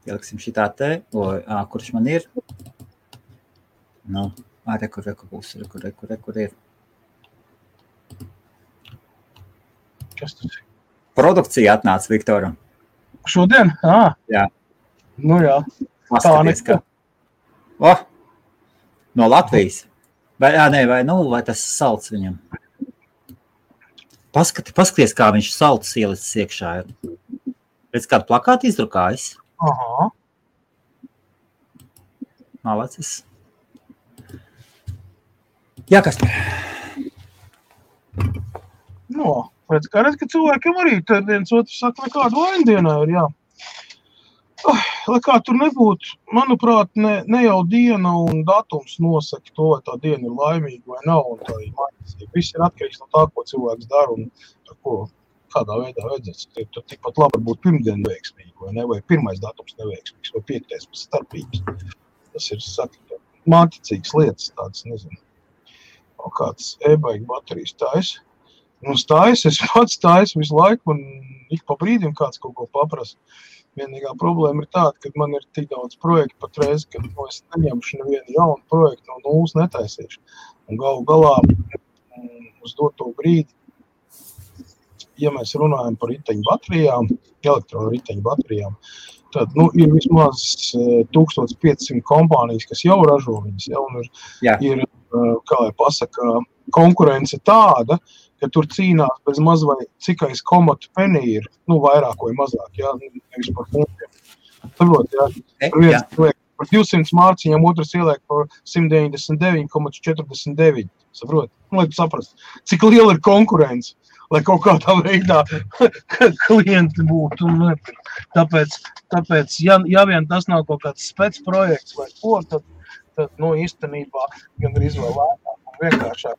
Speaker 1: Ieliksim šitā te, kurš man ir. Nu, rekur būs, rekur ir.
Speaker 2: Kas tas ir?
Speaker 1: Produkcija atnāca Viktoram.
Speaker 2: Šodien?
Speaker 1: Jā.
Speaker 2: Nu jā.
Speaker 1: Paskaties, ka... No Latvijas. Vai tas salds viņam. Paskaties, kā viņš salds ielicis iekšā ir. Redz, kādu plakātu izdrukājis.
Speaker 2: Aha.
Speaker 1: Malacis. Jā, kas par?
Speaker 2: No, redz, ka cilvēkiem arī tad viens otrs saka, nekādu vaindienā ir, jā. Lai kā tur nebūtu, manuprāt, ne jau diena un datums nosaka to, vai tā diena ir laimīga vai nav, un tā ir maņasība. Viss ir atkarīgs no tā, ko cilvēks dara un kādā veidā vajadzēs. Tur tikpat labi būt pirmdiena veiksmīgi, vai ne, vai pirmais datums neveiksmīgs, vai 5. starpības. Tas ir, saka, māticīgas lietas, tādas, nezinu. O kāds e-baigi baterijas taisa. Es pats taisu visu laiku, un ik pa brīdim kāds kaut ko paprasa. Vienīgā problēma ir tāda, ka man ir tik daudz projektu patreiz, ka es neņemšu nevienu jaunu projektu no nulles netaisīšu. Un galu galā uz doto brīdi, ja mēs runājam par riteņu baterijām, elektroriteņu baterijām, tad ir vismaz 1500 kompānijas, kas jau ražo viņas. Ir, kā lai pasaka, konkurence tāda, ka tur cīnās bez maz vai cikais komatu penī ir, vairāk vai mazāk, nevis par punktiem. Saprot, viens liek par 200 mārciņām, otrs ieliek par 199,49. Saprot, lai tu saprast, cik liela ir konkurence, lai kaut kādā veidā klienti būtu. Tāpēc, ja vien tas nav kaut kāds spec projekts vai ko, tad īstenībā gan arī izvēlētāk un vienkāršāk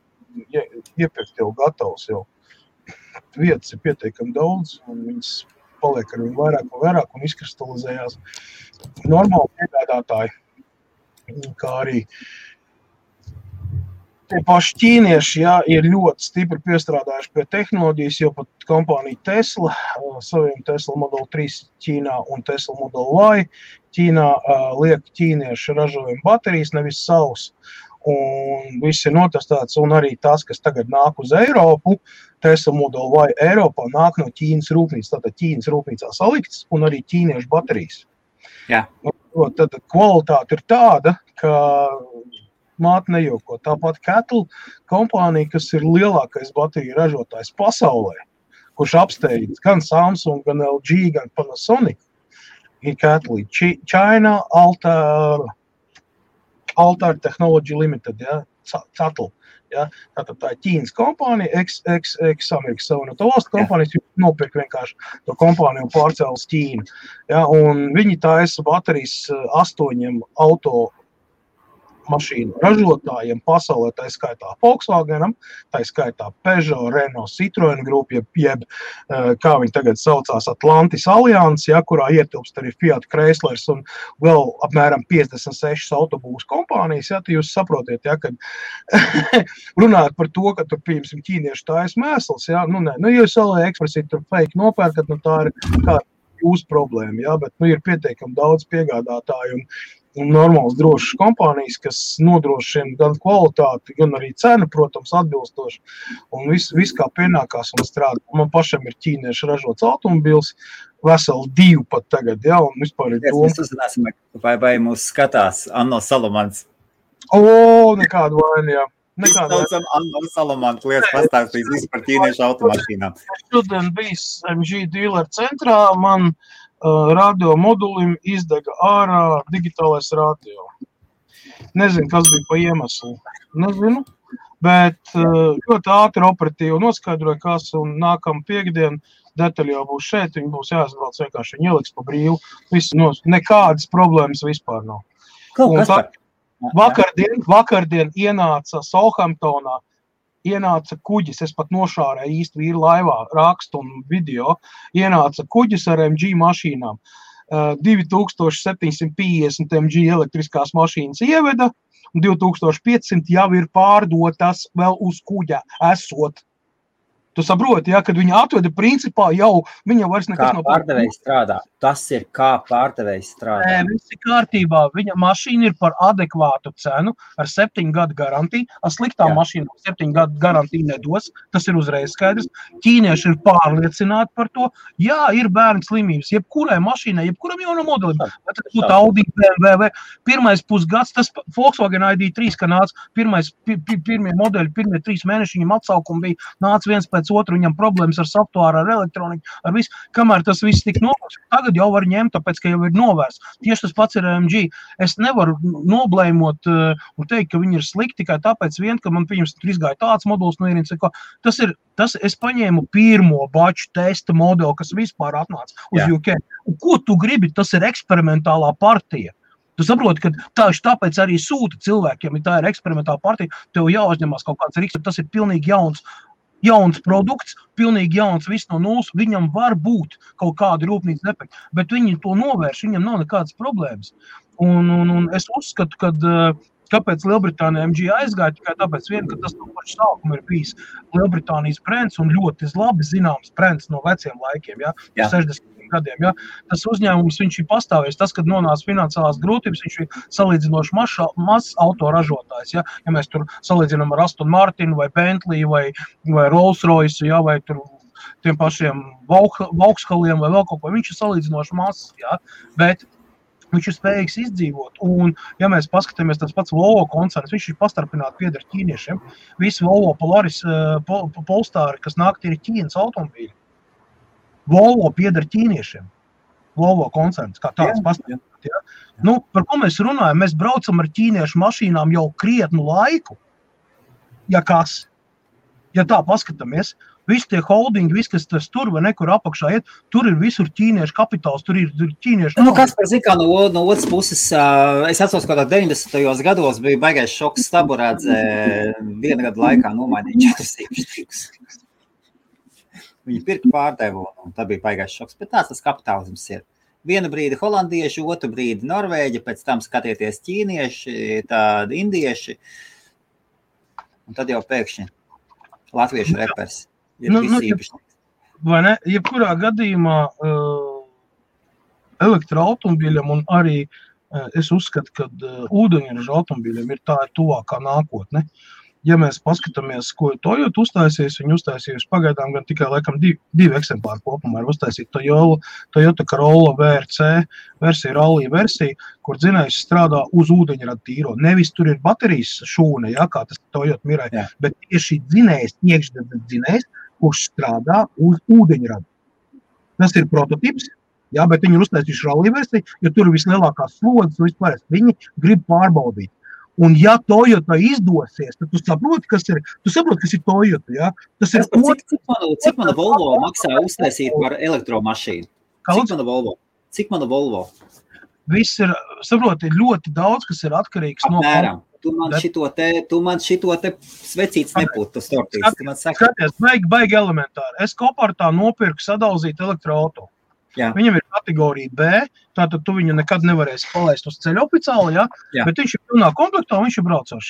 Speaker 2: iepirkt jau gatavs jau. Vietas ir pietiekami daudz, un viņas paliek ar viņu vairāk un izkristalizējās normāli piegādātāji, kā arī tie paši ķīnieši, ir ļoti stipri piestrādājuši pie tehnoloģijas, jo pat kompānija Tesla, saviem Tesla Model 3 Ķīnā un Tesla Model Y Ķīnā liek ķīnieši ražojumu baterijas, nevis savus. Un viss ir notestēts, un arī tas, kas tagad nāk uz Eiropu, Tesla Model Y Eiropā nāk no Ķīnas rūpnīcas, tātad Ķīnas rūpnīcā salikts, un arī ķīniešu baterijas.
Speaker 1: Jā.
Speaker 2: Tad kvalitāte ir tāda, ka māte nejoko. Tāpat Kettle kompānija, kas ir lielākais bateriju ražotājs pasaulē, kurš apsteidz gan Samsung, gan LG, gan Panasonic, ir Kettle. China Altair Technology Limited, Cattle. Tātad tā ir Ķīnas kompānija, ex-Amerikas Savienoto Valstu kompānijas, nopirk vienkārši to kompāniju un pārcēlas Ķīnu. Un viņi taisa baterijas 8 auto mašīnu ražotājiem pasaulē, tā skaitā Volkswagenam, tā skaitā Peugeot, Renault, Citroen grupa, jeb kā viņi tagad saucās Atlantis Alliance, kurā ietilpst arī Fiat Chryslers un vēl apmēram 56 autobūvas kompānijas, tad jūs saprotiet, kad runāt par to, ka tur, pieņemsim, ķīnieši taisa mēsls, ja jūs AliExpressī tur fake nopērkat, tā ir kā jūsu problēma, bet ir pietiekami daudz piegādātāju un normāls drošas kompānijas, kas nodrošina gan kvalitāti, gan arī cenu, protams, atbilstoši. Un viss kā pienākās un strādā. Man pašam ir ķīnieši ražots automobils, veseli 2 pat tagad, un vispār ir doma.
Speaker 1: Mēs uzzināsim, vai mūs skatās Anno Salomans.
Speaker 2: Nekādu vainu,
Speaker 1: Mēs saucam Anno Salomans, lietas pastāstīs visu par ķīniešu automašīnām.
Speaker 2: Šodien bijis MG dealer centrā, man radio modulim izdega ārā digitālais radio. Nezinu, kas bija pa iemeslu. Nezinu, bet ļoti ātri operatīvi noskaidroja, kas un nākam piekdien detaļi jau būs šeit, viņi būs jāizbrauc vienkārši, viņi ieliks pa brīvu. Nekādas problēmas vispār nav. Vakardien ienāca Southamptonā, ienāca kuģis, es pat nošārēju īsti vīru laivā, rakstu un video, ienāca kuģis ar MG mašīnām. 2750 MG elektriskās mašīnas ieveda, un 2500 jau ir pārdotas vēl uz kuģa esot. Tu saproti, ja, kad viņi atveda principā jau, viņa vairs nekas
Speaker 1: nav pārdevējs strādā. Tas ir kā pārdevējs strādā.
Speaker 2: Nē, viss ir kārtībā. Viņa mašīna ir par adekvātu cenu ar 7 gadu garantiju. Ar sliktām mašīnām 7 gadu garantiju nedos. Tas ir uzreiz skaidrs. Ķīnieši ir pārliecināti par to. Jā, ir bērnu slimības. Jebkurai mašīnai, jebkuram jaunam modelim. Vai tas būtu Audi, BMW. Pirmais pusgads, tas Volkswagen ID3, ka nāca pirmie modeļi, pirmie 3 mēneši viņam atsaukumi bija, nāca viens pēc otru, viņam problēmas ar softwāru, ar elektroniku, ar visu, kamēr tas viss tik novērst. Tagad jau var ņemt, tāpēc, ka jau ir novērsts. Tieši tas pats ir AMG. Es nevaru noblēmot un teikt, ka viņi ir slikti tikai tāpēc vien, ka man, pieņems, tur izgāja tāds moduls no ierīnas. Es paņēmu pirmo baču testa modeli, kas vispār atnāca uz UK. Un ko tu gribi? Tas ir eksperimentālā partija. Tu saproti, ka tāpēc arī sūta cilvēkiem, ja tā ir eksperimentāla partija, tev jāuzņemās kaut kāds riks, tas ir pilnīgi jauns produkts, pilnīgi jauns viss no nulles, viņam var būt kaut kādi rūpnīcas defekti, bet viņi to novērš, viņam nav nekādas problēmas. Un es uzskatu, ka kāpēc Lielbritānija MG aizgāja, tikai tāpēc vien, ka tas no paša sākuma ir bijis Lielbritānijas brands un ļoti labi zināms brands no veciem laikiem, 60 gadiem. Ja? Tas uzņēmums, viņš ir pastāvējis. Tas, kad nonāca finansiālās grūtības, viņš ir salīdzinoši mazs autoražotājs. Ja mēs tur salīdzinām ar Aston Martin vai Bentley vai Rolls Royce, ja? Vai tur tiem pašiem Vauxhalliem vai vēl kaut ko, viņš ir salīdzinoši mazs, ja? Bet viņš ir spējīgs izdzīvot. Un, ja mēs paskatāmies tas pats Volvo koncerns, viņš ir pastarpināti pieder ķīniešiem. Visi Volvo Polaris, Polestāri, kas nāk, ir Ķīnas automobīļi. Volvo pieder ķīniešiem. Volvo koncerns, kā tāds pastāvēt. Ja? Par ko mēs runājam? Mēs braucam ar ķīniešu mašīnām jau krietnu laiku. Ja kas? Ja tā paskatāmies, visi tie holdingi, viss, kas tas tur vai nekur apakšā iet, tur ir visur ķīniešu kapitāls, tur ir ķīniešu...
Speaker 1: Kas par zikā no otras puses, es atceros, ka 90. gados bija baigais šoks Staburādze, 1 gadu laikā nomainīja 4 īpašniekus. Viņi pirka pārdevu, un tā bija baigais šoks, bet tāds tas kapitālisms ir. Vienu brīdi holandieši, otru brīdi Norvēģi, pēc tam skatieties ķīnieši, tādi indieši, un tad jau pēkšņi latviešu repers ir visi īpašnieks.
Speaker 2: Vai ne? Jebkurā gadījumā elektroautomobīļiem un arī es uzskatu, ka ūdeņraža automobīļiem ir tā tuvākā nākotne. Ja mēs paskatāmies, ko Toyota uztaisīs, viņi uztaisīs pagaidām gan tikai laikam 2 eksemplāri kopumā ir uztaisīt Toyota Corolla VRC versija, rallija versija, kur dzinējs strādā uz ūdeņrada tīro. Nevis tur ir baterijas šūne, kā tas Toyota Mirai, bet tieši dzinējs, iekšdedzes dzinējs, kurš strādā uz ūdeņrada. Tas ir prototips, bet viņi ir uztaisījuši rallija versiju, jo tur ir vislielākās slodzes, vispār viņi grib pārbaudīt. Un ja Toyota izdosies, tad tu saproti, kas ir Toyota, ja? Tas ir
Speaker 1: cik mana Volvo maksā uztaisīt par elektromašīnu? Cik mana Volvo?
Speaker 2: Viss ir, saproti, ļoti daudz, kas ir atkarīgs no...
Speaker 1: Apmēram. Tu man šito te svecīts nepūtu, tas tortīts.
Speaker 2: Skaties, baigi elementāri. Es Kopartā nopirku sadalzīt elektroauto. Viņam ir kategorija B, tātad tu viņu nekad nevarēsi palaist uz ceļa oficiāli, bet viņš ir pilnā komplektā un viņš ir braucošs.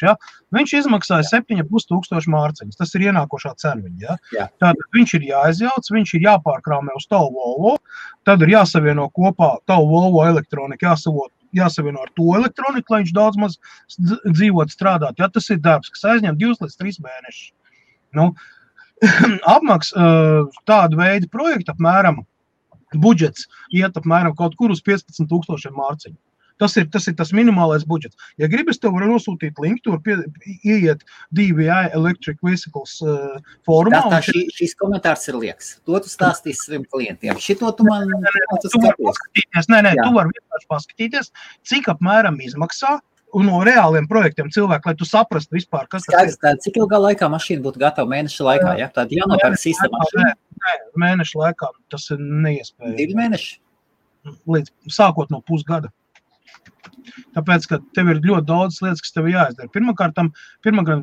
Speaker 2: Viņš izmaksāja 7,5 mārciņas, tas ir ienākošā cena viņa. Tātad viņš ir jāizjauc, viņš ir jāpārkrāmē uz tavu Volvo, tad ir jāsavieno kopā tavu Volvo elektronika, jāsavieno ar to elektroniku, lai viņš daudz maz dzīvot strādāt. Tas ir darbs, kas aizņem 2 līdz 3 mēnešus. Apmaks tādu veidu projektu apmēram budžets iet apmēram kaut kur uz 15,000 mārciņu. Tas ir tas minimālais budžets. Ja gribas, tev var nosūtīt linku, tur ieiet DVI Electric Vehicles fórumā.
Speaker 1: Šis komentārs ir lieks. To tu stāstīsi saviem klientiem. Šito tu man
Speaker 2: paskatīties. Nē, tu vari vienkārši paskatīties, cik apmēram izmaksā un no reāliem projektiem cilvēki, lai tu saprastu vispār, kas tas ir.
Speaker 1: Cik ilgā laikā mašīna būtu gatava mēneša laikā? Tāda jānopērk sīsta mašīna?
Speaker 2: Nē, mēneša laikā tas ir neiespējami.
Speaker 1: 2 mēneši?
Speaker 2: Sākot no pusgada. Tāpēc, ka tev ir ļoti daudz lietas, kas tev jāizdara. Pirmkārt,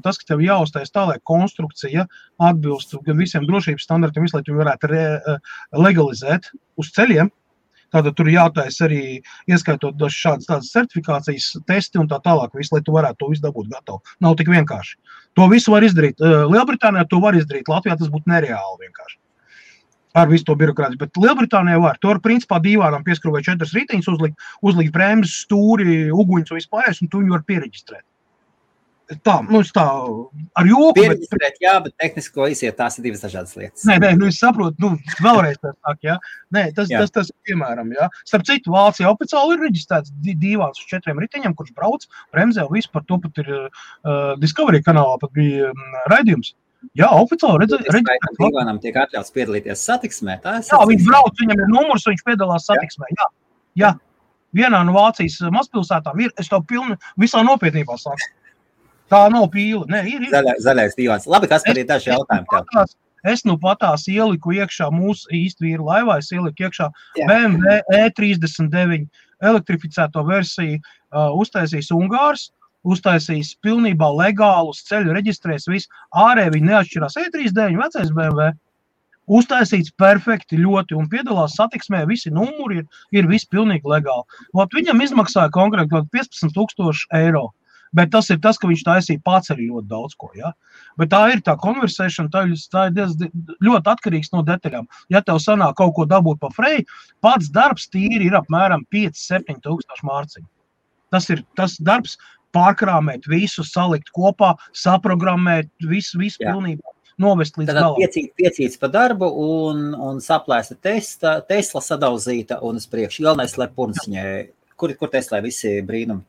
Speaker 2: tas, ka tev jāuztais tā, lai konstrukcija atbilst gan visiem drošības standartiem, lai tu varētu legalizēt uz ceļiem. Tātad tur jātais arī, ieskaitot šādas tādas certifikācijas testi un tā tālāk, visu, lai tu varētu to visu dabūt gatavu. Nav tik vienkārši. To visu var izdarīt. Lielbritānijā to var izdarīt, Latvijā tas būtu nereāli vienkārši. Ar visu to birokrātiju, bet Lielbritānijā var. To var principā dīvānam pieskrūvēt 4 riteņus, uzlikt brēmas, stūri, uguņus un vispārējais, un tu viņu var piereģistrēt. Tā, tā ar joku.
Speaker 1: Piereģistrēt, jā, bet tehnisko iziet, tās ir divas dažādas lietas.
Speaker 2: Nē, es saprotu, vēlreiz tā sāk, jā. Nē, tas piemēram, jā. Starp citu, Vācijā oficiāli ir reģistrēts dīvāns uz 4 riteņiem, kurš brauc, bremzē, visu par to pat ir Discovery kanālā, pat bija raidījums. Jā, oficiāli reģistrēts.
Speaker 1: Dīvānam tiek atļauts piedalīties satiksmē.
Speaker 2: Jā, viņš brauc, viņam ir numurs, viņš piedalās satiksmē, jā. Vienā no Vācijas mazpilsētām ir, es to pilni visā nopietnībā saku. Tā nav pīle. Nē, ir.
Speaker 1: Zaļais dīvāns. Labi, kas par ir daži jautājumi tev?
Speaker 2: Es nu patās ieliku iekšā mūsu īsti vīru laivā, es ieliku iekšā BMW E39 elektrificēto versiju, uztaisīs Ungārs, uztaisīs pilnībā legālus ceļu, reģistrēs visu, ārēji viņi neatšķirās E39, vecais BMW, uztaisīts perfekti ļoti un piedalās satiksmē, visi numuri ir visi pilnīgi legāli. Viņam izmaksāja konkrēti 15,000 eiro. Bet tas ir tas, ka viņš taisīja pats arī ļoti daudz ko, ja? Bet tā ir tā konversēšana, tā ir ļoti atkarīgs no detaļām. Ja tev sanāk kaut ko dabūt pa frei, pats darbs tīri ir apmēram 5-7 tūkstoši mārciņu. Tas ir tas darbs pārkrāmēt visu, salikt kopā, saprogrammēt visu pilnībā, novest līdz galam.
Speaker 1: Piecīts pa darbu un saplēsta Tesla sadauzīta un uz priekšu. Galvenais, lai purnciņai. Kur Tesla visi brīnumi?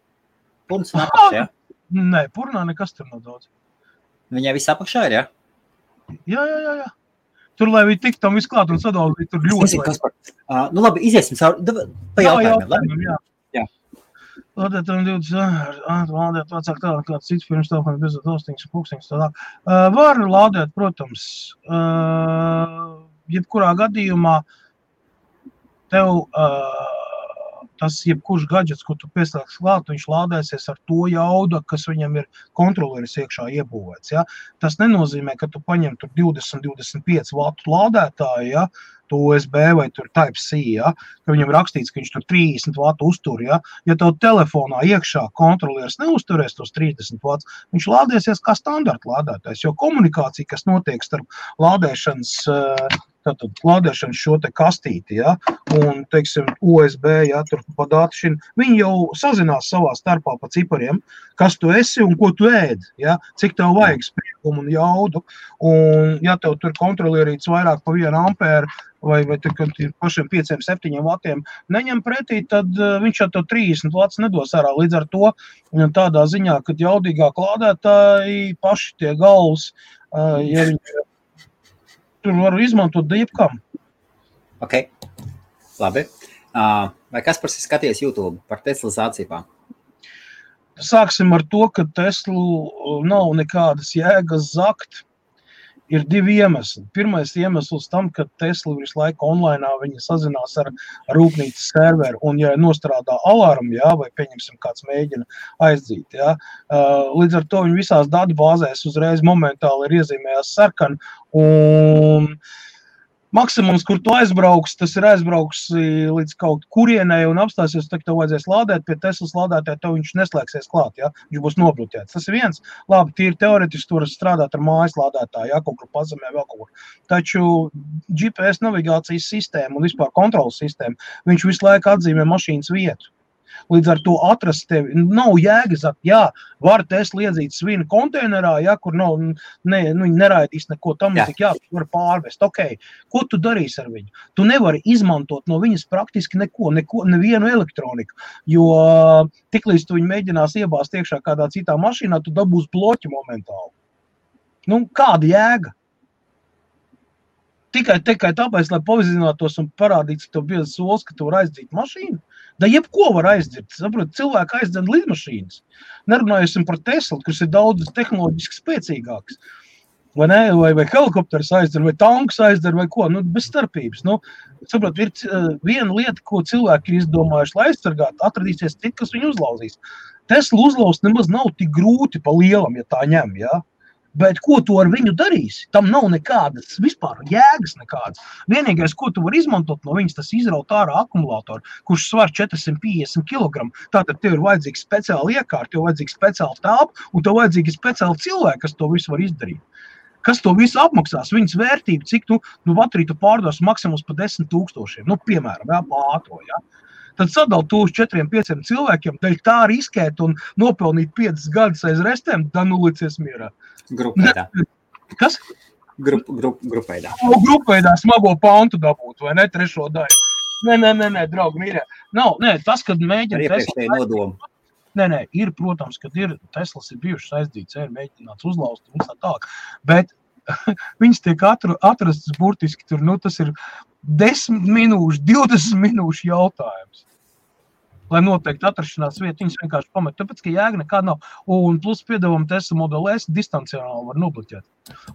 Speaker 1: Purns un apakšā, jā?
Speaker 2: Nē, purnā nekas tur nav daudz.
Speaker 1: Viņai viss apakšā ir, jā?
Speaker 2: Jā. Tur, lai viņi tik tam visu klāt un sadauzīt, tur ļoti.
Speaker 1: Nu labi, iziesim pa jautājumiem.
Speaker 2: Jā. Lādēt, 20, lādēt vecāk tālāk, kāds cits pirms telefona bez tostiņas, pūkstiņas tālāk. Var lādēt, protams, jebkurā gadījumā tev tas jebkurš gadžets, ko tu pieslēgs klāt, viņš lādēsies ar to jaudu, kas viņam ir kontroleris iekšā iebūvēts. Ja? Tas nenozīmē, ka tu paņem tur 20-25 vatu lādētāju, ja? To USB vai tur Type-C, ja? Ka viņam rakstīts, ka viņš tur 30 vatu uztur. Ja tev telefonā iekšā kontroleris neuzturēs tos 30 vats, viņš lādēsies kā standarta lādētājs, jo komunikācija, kas notiek starp lādēšanas šo te kastīti, ja, un, teiksim, USB, ja, tur pa datašinu, viņi jau sazinās savā starpā pa cipariem, kas tu esi un ko tu ēd, ja, cik tev vajag spriegumu un jaudu, un, ja tev tur kontrolierīts vairāk pa 1 ampēru, vai pašiem 5-7 vatiem neņem pretī, tad viņš jau tev 30 vats nedos ārā. Līdz ar to tādā ziņā, kad jaudīgāk lādētāji paši tie galvas, ja viņi tur varu izmantot jebkam.
Speaker 1: Ok, labi. Vai Kaspars ir skaties YouTube par Tesla zācībām?
Speaker 2: Sāksim ar to, ka Teslu nav nekādas jēgas zakt. Ir 2 iemesli. Pirmais iemesls tam, ka Tesla visu laiku online viņi sazinās ar rūpnīcas serveru, un ja nostrādā alarmu, ja, vai pieņemsim kāds mēģina aizdzīt, ja, līdz ar to viņi visās datubāzēs uzreiz momentāli ir iezīmējās sarkani, un maksimums, kur tu aizbrauks, tas ir aizbrauks līdz kaut kurienei un apstāsies, tad tev vajadzēs lādēt, pie Teslas lādētāja tev viņš neslēgsies klāt, ja? Viņš būs nobloķēts. Tas ir viens. Labi, tīri teoretiski tu vari strādāt ar mājas lādētāju, ja? Kaut kur pazemē vēl kaut kur. Taču GPS navigācijas sistēma un vispār kontrolas sistēma, viņš visu laiku atzīmē mašīnas vietu. Līdz ar to atrast tevi nav jēgas, jā, var Tesla iedzīt svinu konteinerā, ja, kur nav, viņi neraidīs neko tam, jā, tu var pārvest. Ok, ko tu darīsi ar viņu? Tu nevari izmantot no viņas praktiski nevienu elektroniku, jo tiklīdz tu viņu mēģinās iebāzt iekšā kādā citā mašīnā, tu dabūs bloķi momentāli. Nu, kāda jēga? Tikai tāpēc, lai pavizinātos un parādītu tev biezas solis, ka tu var aizdzīt mašīnu. Da jebko var aizdzīt. Saprot, cilvēki aizdzen lidmašīnas. Nerunājusim par Teslu, kas ir daudz tehnoloģiski spēcīgāks. Vai ne? Vai helikopters aizdzer, vai tanks aizdzer, vai ko. Nu, bez starpības. Nu, saprot, ir viena lieta, ko cilvēki ir izdomājuši, lai aizsargātu, atradīsies citi, kas viņu uzlauzīs. Tesla uzlauzt nemaz nav tik grūti pa lielam, ja tā ņem, jā. Bet ko tu ar viņu darīsi? Tam nav nekādas vispār jēgas nekādas. Vienīgais, ko tu vari izmantot no viņas, tas izraut ārā akumulātoru, kurš svar 450 kg. Tātad tev ir vajadzīgs speciāli iekārt, tev vajadzīgs speciāli telpa un tev vajadzīgi speciāli cilvēki, kas to visu var izdarīt. Kas to visu apmaksās? Viņas vērtība, cik bateriju tu pārdos maksimums pa 10 000, piemēram, ātro, Tad sadal to uz 4-5 cilvēkiem, daļ tā riskēt un nopelnīt 5 gadus aiz restēm, licies mierā.
Speaker 1: Grupveidā.
Speaker 2: Kas?
Speaker 1: Grupveidā.
Speaker 2: Grupveidā smago pantu dabūt, vai ne, 3. daļu. Nē, draugi, mīļā. Tas, kad mēģina
Speaker 1: Iepriekšēji nodomu.
Speaker 2: Nē, ir, protams, kad Teslas ir bijušas aizdīts, ir mēģināts uzlauzt un tā tālāk, bet viņas tiek atrastas burtiski tur, tas ir 10 minūšu, 20 minūšu jautājums. Lai noteikti atrašanās vieta, viņas vienkārši pamet, tāpēc, ka jēga nekāda nav. Un plus piedāvām Tesla Model S distancionāli var nobloķēt.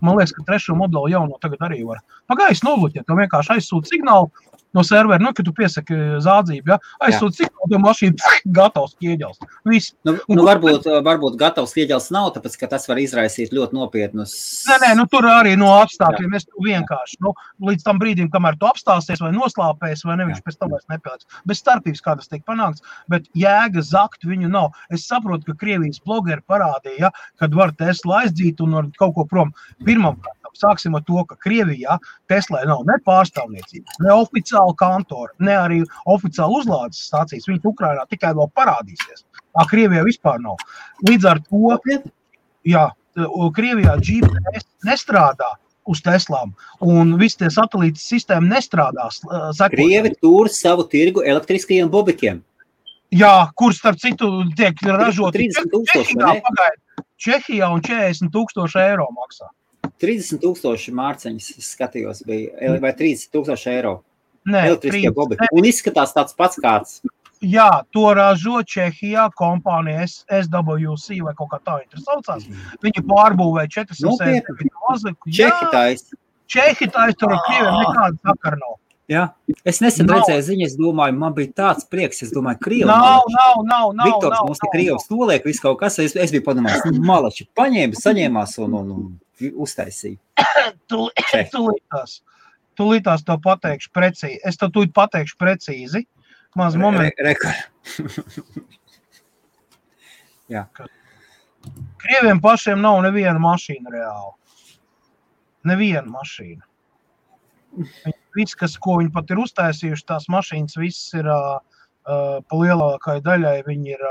Speaker 2: Man liekas, ka 3. modeli jau no tagad arī var. Pagājis nobloķēt, to vienkārši aizsūt signālu no servera, kad tu piesaki zādzību, aizsūt signālu, to mašīnu gatavs ķieģels. Viss.
Speaker 1: Varbūt gatavs ķieģels nav, tāpēc, ka tas var izraisīt ļoti nopietnus.
Speaker 2: Nē, tur arī no apstākļiem es tu vienkārši, līdz tam brīdim, kamēr tu apstāsies vai noslāpēs, vai neviņš pēc tam vairs nepēlēs. Bez starpības kādas tiek panākts, bet jēga zakt viņu nav. Es saprotu, ka Krievijas blogeri parādīja, kad var Tesla aizdzīt un var kaut ko prom. Pirmam sāksim ar to, ka Krievijā Teslai nav ne pārstāvniecības, ne oficiāla kantora, ne arī oficiāla uzlādes stācijas. Viņi Ukrainā tikai vēl parādīsies. Krievijā vispār nav. Līdz ar to, Krievijā GPS nestrādā uz Teslām, un visi tie satelītas sistēma nestrādās.
Speaker 1: Krievi tur savu tirgu elektriskajiem bobikiem.
Speaker 2: Jā, kur starp citu tiek ražoti
Speaker 1: 30,000,
Speaker 2: Čehijā un 40,000 eiro maksā.
Speaker 1: 30,000 mārciņas, es skatījos, bija, vai 30,000 eiro.
Speaker 2: Nē,
Speaker 1: elektriskie bobiki. Un izskatās tāds pats kāds.
Speaker 2: Jā, to ražo Čehijā kompānija SWC vai kaut kā tā ir saucās. Viņi pārbūvēja 400 eiro. Čehi tais, tur ar Krieviem nekāda sakara nav.
Speaker 1: Jā, es nesen redzēju ziņu, es domāju, man bija tāds prieks, es domāju, Krievi
Speaker 2: nav.
Speaker 1: Viktors mums te Krievs noliek, visu kaut kas, es biju padomājis, malači saņēmās un uztaisīja.
Speaker 2: Tūlītās to pateikšu precīzi. Es to tūlīt pateikšu precīzi. Maz momentu.
Speaker 1: Jā.
Speaker 2: Krieviem pašiem nav neviena mašīna reāli. Neviena mašīna. Viss, ko viņi pat ir uztaisījuši, tās mašīnas viss ir pa lielākai daļai, viņi ir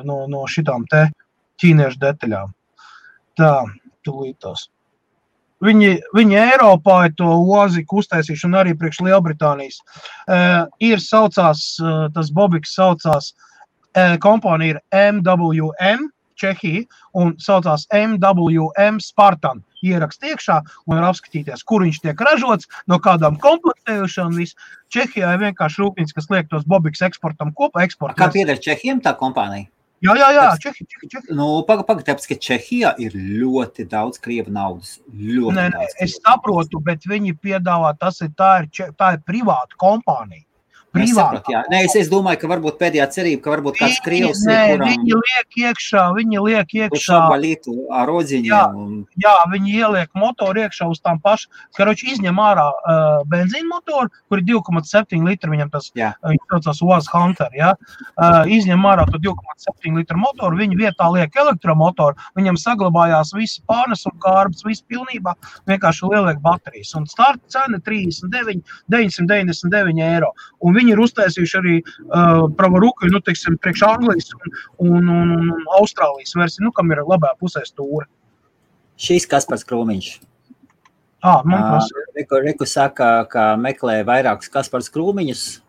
Speaker 2: no šitām te ķīniešu detaļām. Tā, tūlītās. Viņi Eiropā ir to oziku uztaisījuši un arī priekš Lielbritānijas. Ir saucās, tas bobiks saucās, kompānija ir MWM, Čehija, un saucās MWM Spartan. Ierakst iekšā un var apskatīties, kur viņš tiek ražots, no kādām komplektējušām un viss. Čehijā ir vienkārši rūpnīca, kas liek tos bobiks eksportam kopā.
Speaker 1: Kā pieder Čehiem tā kompānija?
Speaker 2: Jā, Čehi.
Speaker 1: Tāpēc, ka Čehijā ir ļoti daudz krievu naudas.
Speaker 2: Nē, es saprotu, bet viņi piedāvā, tā ir privāta kompānija.
Speaker 1: Es domāju, ka varbūt pēdējā cerība, ka varbūt kāds krievs ir, kuram...
Speaker 2: Viņi liek iekšā.
Speaker 1: Ar rodziņiem.
Speaker 2: Jā, viņi ieliek motoru iekšā uz tām pašām. Karoči izņem ārā benzīna motoru, kur ir 2,7 litri, viņam tas, viņš saucās UAZ Hunter, jā. Izņem ārā to 2,7 litru motoru, viņi vietā liek elektromotoru, viņam saglabājās visi pārnes un kārbas, visi pilnībā, vienkārši lieliek baterijas. Un starta cena 999 eiro. Un viņi ir uztaisījuši arī pravaruku, priekš Anglijas un Austrālijas versiju, kam ir labā pusē stūra.
Speaker 1: Šīs Kaspars Krūmiņš. Reku saka, ka meklē vairākus Kaspars Krūmiņus.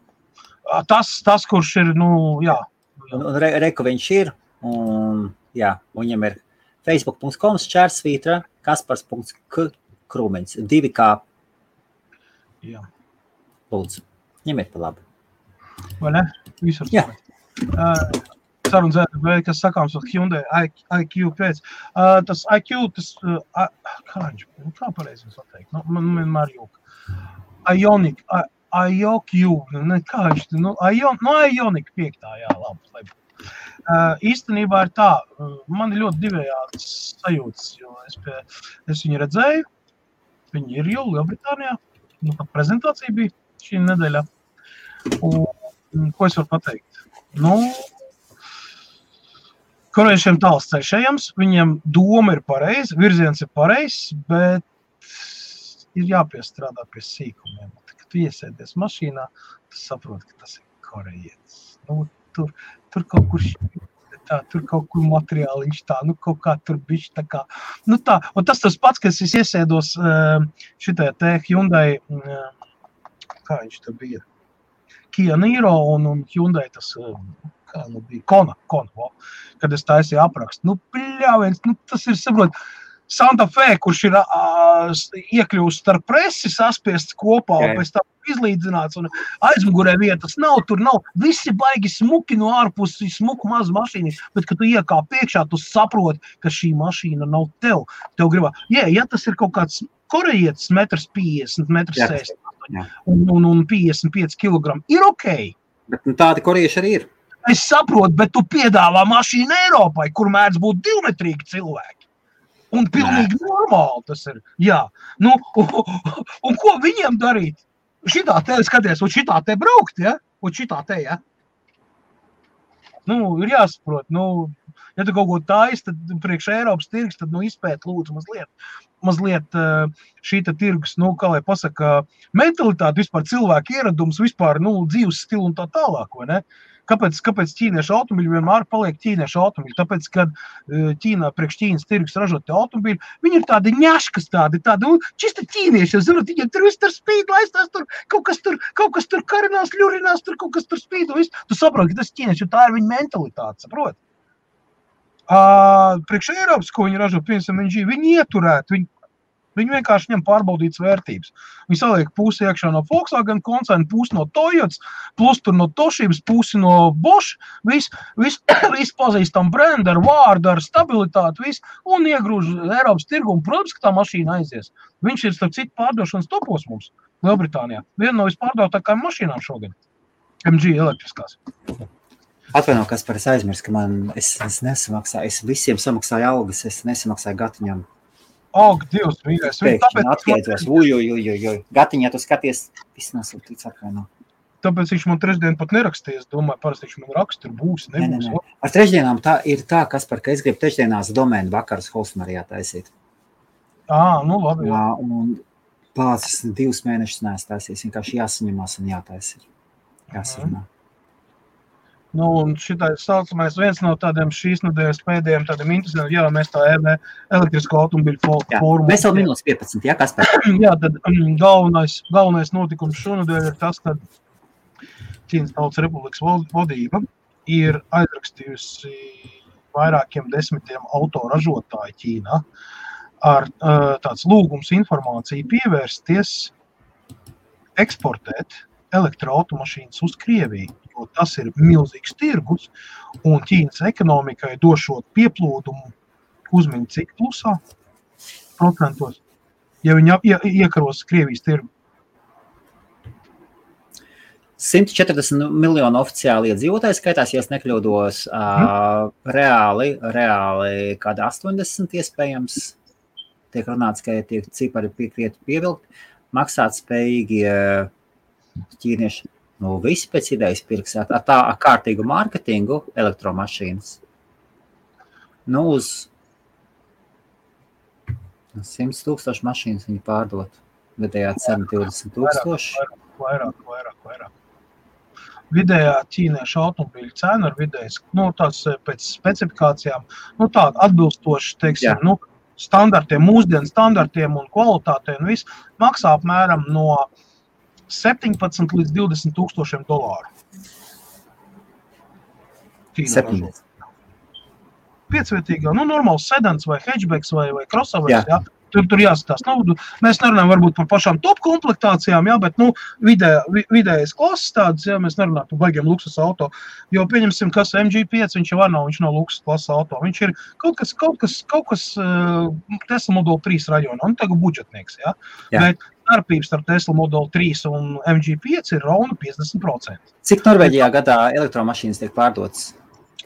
Speaker 2: Tas, kurš ir, jā.
Speaker 1: Reku viņš ir, un viņam ir facebook.com/čērsvītra kaspars.krūmiņš. 2K.
Speaker 2: Jā.
Speaker 1: Lūdzu, ņemiet pa labi.
Speaker 2: Vai ne? Visur.
Speaker 1: Jā.
Speaker 2: Sarunas vēl, kas sakāms ar Hyundai IQ pēc. Tas IQ, kā pareizi jums pateikt? Man vienmēr jūka. IOQ, kā viņš, Ioniq 5, jā, labi. Īstenībā ir tā, man ir ļoti divējāds sajūtas, jo es viņu redzēju, viņi ir jau Lielbritānijā, pat prezentācija bija šī nedēļā. Un ko es varu pateikt? Korejiešiem tāls ceļš ejams, viņiem doma ir pareiza, virziens ir pareizs, bet ir jāpiestrādā pie sīkumiem. Kad tu iesēdies mašīnā, tu saproti, ka tas ir korejietis. Tur kaut kur tur kaut kur materiāliņš tā, kaut kā tur bišķi tā kā. Tā, un tas pats, kad es iesēdos šitajā te Hyundai, kā viņš tā bija, Kia Niro un Hyundai tas, kā bija, Kona, kad es taisīju aprakstu. Pļāviens, tas ir, saprot, Santa Fe, kurš ir iekļūst starp presi, saspiests kopā, un pēc tam izlīdzināts, un aizmugurē vietas nav, tur nav, visi baigi smuki no ārpusi, smuku mazu mašīnu, bet, kad tu iekāp priekšā, tu saproti, ka šī mašīna nav tev. Tev gribā, ja tas ir kaut kāds korejietis 1,50 m, 1,60 m un 55 kg, ir okei.
Speaker 1: Bet tādi korejieši arī ir.
Speaker 2: Es saprotu, bet tu piedāvā mašīnu Eiropai, kur mēdz būt 2-metrīgi cilvēki. Un pilnīgi normāli tas ir. Jā. Un ko viņiem darīt? Šitā te skaties, un šitā te braukt, ja? Un šitā te, ja? Ir jāsaprot, ja tu kaut ko taisi, tad priekš Eiropas tirgus, tad izpēt lūdzu mazliet šī tirgus, kā lai pasaka, mentalitāte, vispār cilvēku ieradums, vispār, dzīves stilu un tā tālāk, vai ne? Kāpēc ķīniešu automobīļi vienmēr paliek ķīniešu automobīļi? Tāpēc, kad priekš Ķīnas tirgus ražot te automobīļi, viņi ir tādi ņaškas, tādi, čisti ķīnieši, zinot, viņiem tur viss tur spīd, laistās tur, kaut kas tur karinās, ļurinās, tur kaut kas tur spīd, un viss. Tu saproti, ka tas ķīnieši, jo tā ir viņa mentalitāte, saproti? Priekš Eiropas, ko viņi ražo, piemēram, viņi ieturēt, viņi vienkārši ņem pārbaudītas vērtības. Viņi saliek pusi iekšā no Volkswagen koncerna, pusi no Toyotas, plus tur no Toshibas, pusi no Bosch, viss pazīstam brendu ar vārdu, ar stabilitāti, viss, un iegrūž Eiropas tirgu, un, protams, ka tā mašīna aizies. Viņš ir starp citu pārdošanas topos mums, Lielbritānijā. Viena no vispārdautākajām mašīnām šogad. MG elektriskās.
Speaker 1: Atvaino, Kaspar, es aizmirsu, ka es nesamaksāju, es visiem samaksāju algas, es nesamaksāju Gatiņam.
Speaker 2: Dievs, mīļais.
Speaker 1: Pēkšņi atskaitos, Gatiņā tu skaties, viss nesūtīts atvaino.
Speaker 2: Tāpēc viņš man trešdien pat nerakstīja, es domāju, parasti viņš man raksta, tur būs, nebūs.
Speaker 1: Ne. Ar trešdienām ir tā, Kaspar, ka es gribu trešdienās domēnu vakarus Holsmarijā taisīt.
Speaker 2: Labi, jā.
Speaker 1: Un pācis 2 mēnešus neesmu taisījis, vienkārši jāsaņemās un jātaisa. Jāsarunā.
Speaker 2: Un šitais saucamais viens no tādiem šīs nedēļas pēdējiem tādiem interesantiem, mēs tā elektrisko automobiļu fórumu.
Speaker 1: Mēs vēl minūtes 15, jā, Kaspar?
Speaker 2: Jā, tad galvenais notikums šonedēļ ir tas, ka Ķīnas Tautas Republikas vadība ir aizrakstījusi vairākiem 10 autoražotāju Ķīnā ar tāds lūgums informāciju pievērsties eksportēt elektroautomašīnas uz Krieviju, jo tas ir milzīgs tirgus, un Ķīnas ekonomikai došot pieplūdumu uzmini cik plusā procentos, ja viņi iekaros Krievijas tirgu.
Speaker 1: 140 miljonu oficiāli iedzīvotāji skaitās, ja es nekļūdos, reāli kāda 80 iespējams, tiek runāts, ka tiek cipari pievilkt, maksāt spējīgi ķīnieši, visi pēc idejas pirks ar kārtīgu mārketingu elektromašīnas. Uz 100,000 mašīnas viņi pārdot, vidējā cena 20,000.
Speaker 2: Vairāk. Vidējā ķīniešu automobīļu cena ar vidējas, tās pēc specifikācijām, tāda atbilstoši, teiksim, standartiem, mūsdienu standartiem un kvalitātēm, viss maksā apmēram no 17 līdz 20,000 dolāru.
Speaker 1: 17.
Speaker 2: Piecvietīgā, normāls sedans vai hatchbacks vai crossovers, jā. Tur jāskatās. Mēs nerunājam varbūt par pašām top komplektācijām, jā, bet vidējais klases tādas, jā, mēs nerunājam par baigiem luksus auto, jo pieņemsim, kas MG5, viņš jau viņš nav luksus klases auto, viņš ir kaut kas Tesla Model 3 rajonā, un tagad budžetnieks, jā. Bet starpības starp Tesla Model 3 un MG5 ir rauna 50%.
Speaker 1: Cik Norvēģijā gadā elektromašīnas tiek pārdotas?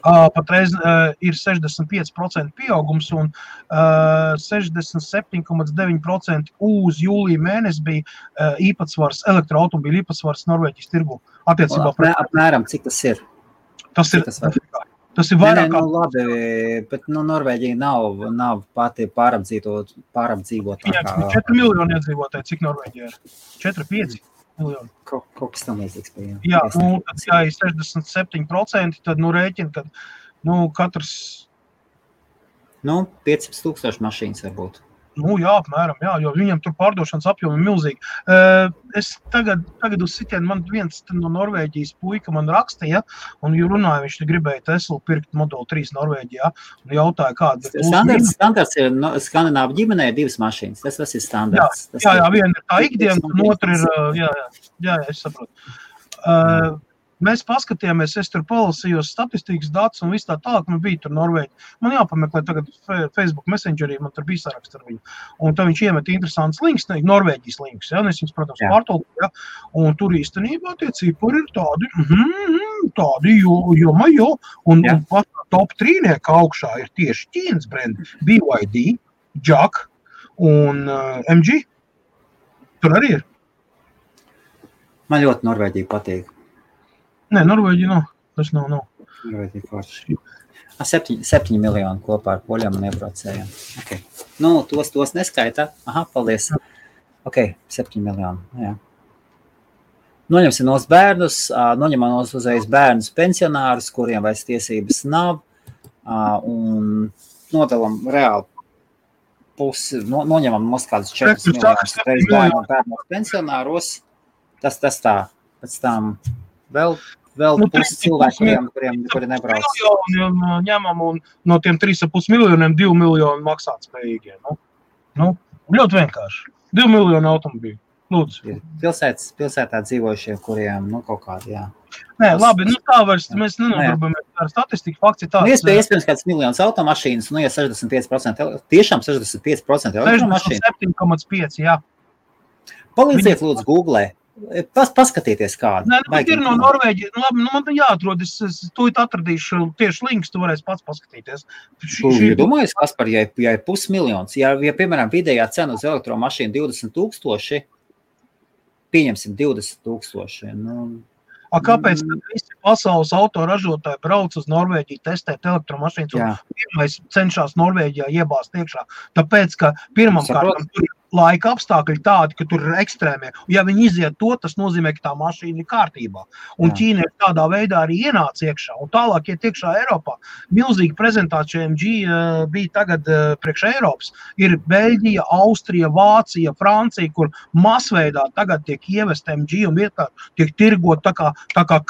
Speaker 2: Patreiz ir 65% pieaugums un 67,9% uz jūlija mēnesi bija īpatsvars, elektroautomobīļu īpatsvars Norvēģijas tirgu.
Speaker 1: Apmēram, cik tas ir?
Speaker 2: Tas ir vairāk
Speaker 1: kā... labi, bet Norvēģija nav pati pārapdzīvot.
Speaker 2: Viņam 4 miljoni iedzīvotāji, cik Norvēģija ir? 4-5 miljoni.
Speaker 1: Kaut kas tam līdzīgs bija.
Speaker 2: Jā, tad, ja ir 67%, tad rēķina, kad katrs...
Speaker 1: 500,000 mašīnas varbūt.
Speaker 2: Jā, apmēram, jā, jo viņam tur pārdošanas apjomi ir milzīgi. Es tagad uz sitienu, man viens no Norvēģijas puika man rakstīja, un runāja, viņš gribēja Teslu pirkt Model 3 Norvēģijā, un jautāja, kāda ir
Speaker 1: standarts ir Skandināvu ģimenē ir 2 mašīnas, tas ir standarts.
Speaker 2: Jā, viena ir tā ikdiena, un otra ir, jā, es saprotu. Mēs paskatījāmies, es tur palasījos statistikas datus un viss tā tālāk, man bija tur Norvēģi. Man jāpameklē tagad Facebook Messengerī, man tur bija saraksts ar viņu. Un tad viņš iemet interesants links, Norvēģijas links, ja, un es viņus, protams, pārtolku, ja, un tur īstenībā tie cipari ir tādi, jo, un pat top 3 augšā ir tieši Ķīnas brendi, BYD, JAC un MG. Tur arī ir.
Speaker 1: Man ļoti Norvēģija patīk.
Speaker 2: Nē, Norvēģija nav. Tas nav.
Speaker 1: Norvēģija forši. 7 miljoni kopā ar poļiem un iebraucējiem. Okay. Tos neskaitā. Aha, paldies. Ok, 7 miljoni. Jā. Noņemsim nos bērnus, noņemam nos uzreiz bērnus pensionārus, kuriem vairs tiesības nav, un nodalam reāli pusi, noņemam nos kādus 4 miljonus reiz bērnus pensionāros. Tas tā. Pēc tam vēl pusi cilvēkiem, kuri nebrauc.
Speaker 2: Ņemam un no tiem 3,5 miljoniem 2 miljoni maksāt spējīgie. Ļoti vienkārši. 2 miljoni automobīļu. Lūdzu.
Speaker 1: Pilsētā dzīvojušie, kuriem, kaut kādi, jā.
Speaker 2: Nē, labi, tā vairs mēs nenodarbojamies ar statistiku. Fakts ir tāds.
Speaker 1: Iespējams kāds miljons automašīnas, ja 65%, tiešām 65% automašīnas.
Speaker 2: 67,5, jā.
Speaker 1: Palīdziet, lūdzu, Googlē. Paskatieties kādu.
Speaker 2: Nē, ir no Norvēģija. Labi, man jāatrod, es tūlīt atradīšu tieši links, tu varēsi pats paskatīties.
Speaker 1: Domājies, Kaspar, ja ir pusmiljons, ja piemēram vidējā cena uz elektromašīnu 20,000, pieņemsim 20,000.
Speaker 2: Kāpēc visi pasaules autoražotāji brauc uz Norvēģiju testēt elektromašīnas un pirmais cenšas Norvēģijā iebāzt iekšā? Tāpēc, ka pirmam kārtam tur ir laika apstākļi tādi, ka tur ir ekstrēmie. Ja viņi iziet to, tas nozīmē, ka tā mašīna ir kārtībā. Un Ķīna ir tādā veidā arī ienāca iekšā. Un tālāk iet iekšā Eiropā. Milzīga prezentācija MG bija tagad priekš Eiropas. Ir Beļģija, Austrija, Vācija, Francija, kur masveidā tagad tiek ievest MG un vietā tiek tirgot tā kā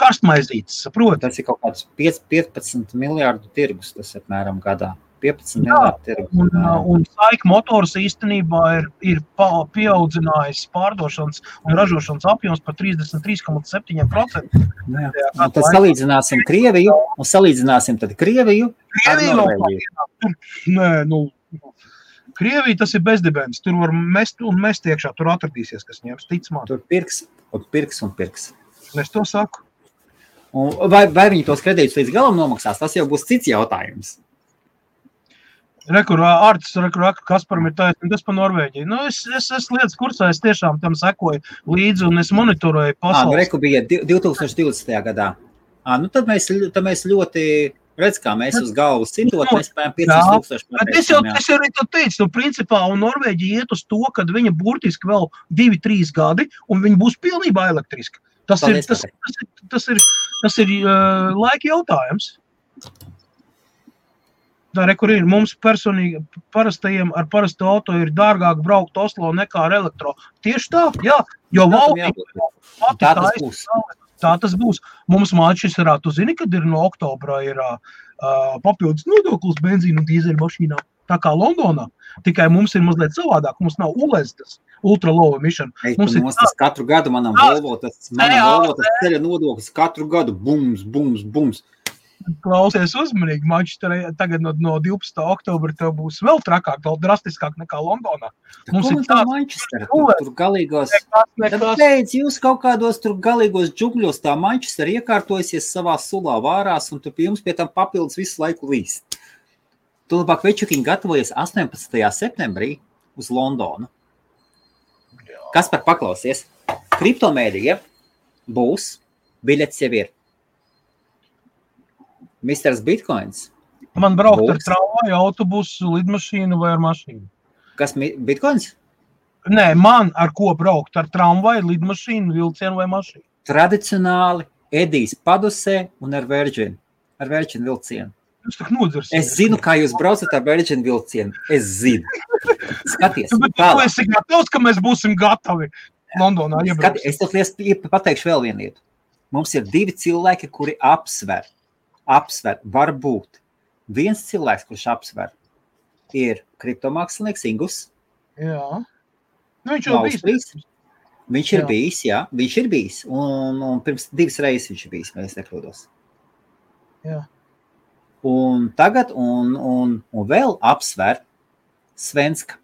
Speaker 2: karstmaizītes, saprot?
Speaker 1: Tas ir kaut kāds 15 miljārdu tirgus, tas apmēram gadā. 15 miljārdu tirgus.
Speaker 2: Un SAIC Motors īstenībā ir pieaudzinājis pārdošanas un ražošanas apjoms par 33,7%.
Speaker 1: Tad salīdzināsim Krieviju, un salīdzināsim tad Krieviju ar Norvēģiju.
Speaker 2: Nē, Krievija tas ir bezdibens. Tur var mest un mest iekšā, tur atradīsies, kas ņems, tic man.
Speaker 1: Tur pirks.
Speaker 2: Es to saku.
Speaker 1: Vai viņi tos kredītus līdz galam nomaksās, tas jau būs cits jautājums.
Speaker 2: Kasparam ir taisnība, tas par Norvēģiju. Es lietas kursā, es tiešām tam sekoju līdzi un es monitoroju pasaules.
Speaker 1: Reku bija 2020. gadā. Tad mēs ļoti redz, kā mēs uz galvas citot, mēs spējam 5,000.
Speaker 2: Es jau arī to teicu, principā, un Norvēģija iet uz to, kad viņa burtiski vēl 2-3 gadi, un viņa būs pilnībā elektriska. Tas ir laika jautājums. Kur ir mums personīgi parastajiem ar parastu auto ir dārgāk braukt Oslo nekā ar elektro. Tieši tā, jā, jo tā tas būs. Mums Manchesterā, tu zini, kad ir no oktobra ir papildus nodoklis benzīnu un dīzeļu mašīnām. Tā kā Londonā, tikai mums ir mazliet savādāk, mums nav ULEZ tas ultra low emission.
Speaker 1: Tas katru gadu manam Volvo tas ceļa nodoklis katru gadu bums.
Speaker 2: Klausies uzmanīgi, Manchesterē tagad no 12. oktobra tev būs vēl trakāk, vēl drastiskāk nekā Londonā.
Speaker 1: Mums ir tā Manchestera, tur galīgos, tad beidz jūs kaut kādos tur galīgos džungļos, tā Manchestera iekārtojusies savā sulā vārās, un tu pie jums pie tam papildus visu laiku līst. Tu labāk Večukiņi gatavojies 18. septembrī uz Londonu. Kas par paklausies? Kriptomēdija būs, biļets jau ir. Misters Bitcoins.
Speaker 2: Man braukt ar tramvaju, autobusu, lidmašīnu vai ar mašīnu?
Speaker 1: Kas Bitcoins?
Speaker 2: Nē, man ar ko braukt? Ar tramvaju, lidmašīnu, vilcienu vai mašīnu?
Speaker 1: Tradicionāli Edijs Padusē un ar Virgin vilcienu.
Speaker 2: Jūs tak nodzirsiet.
Speaker 1: Es zinu, kā jūs braucat ar Virgin vilcienu. Es zinu. Skaties.
Speaker 2: Bet tu esi gatavs, ka mēs būsim gatavi Londonā iebraukt.
Speaker 1: Es tev pateikšu vēl vienu lietu. Mums ir 2 cilvēki, kuri apsver, varbūt. Viens cilvēks, kurš apsver, ir kriptomākslinieks Ingus.
Speaker 2: Jā. Nu, viņš jau bijis.
Speaker 1: Viņš ir bijis. Un pirms 2 reizes viņš ir bijis, mēs nekļūdos.
Speaker 2: Jā.
Speaker 1: Un tagad, un vēl apsver Svenska.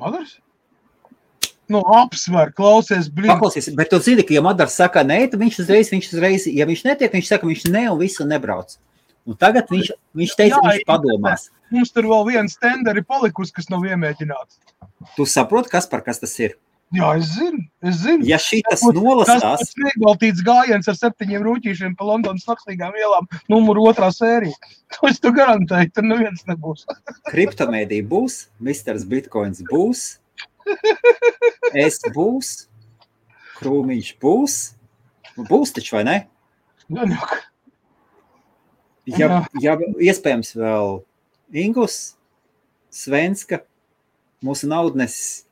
Speaker 2: Madars? Nu, apsver, klausies,
Speaker 1: Paklausies, bet tu zini, ka ja Madars saka nē, tad viņš uzreiz, ja viņš netiek, viņš saka, viņš ne un visu nebrauc. Un tagad viņš teica, viņš padomās.
Speaker 2: Mums tur vēl viens tenderi palikusi, kas nav iemēģināts.
Speaker 1: Tu saproti, kas tas ir?
Speaker 2: Jā, es zinu.
Speaker 1: Ja šitas nolasās...
Speaker 2: Tas nebaltīts gājiens ar 7 rūķīšiem pa Londonas nakstīgām ielām, numuru 2. sērija. To es tu garantēju, tur neviens nebūs.
Speaker 1: Kriptomēdija būs, Misters Bitcoins būs, es būs, Krūmiņš būs taču, vai ne? Ja iespējams vēl Ingus, Svenska, mūsu naudnesis,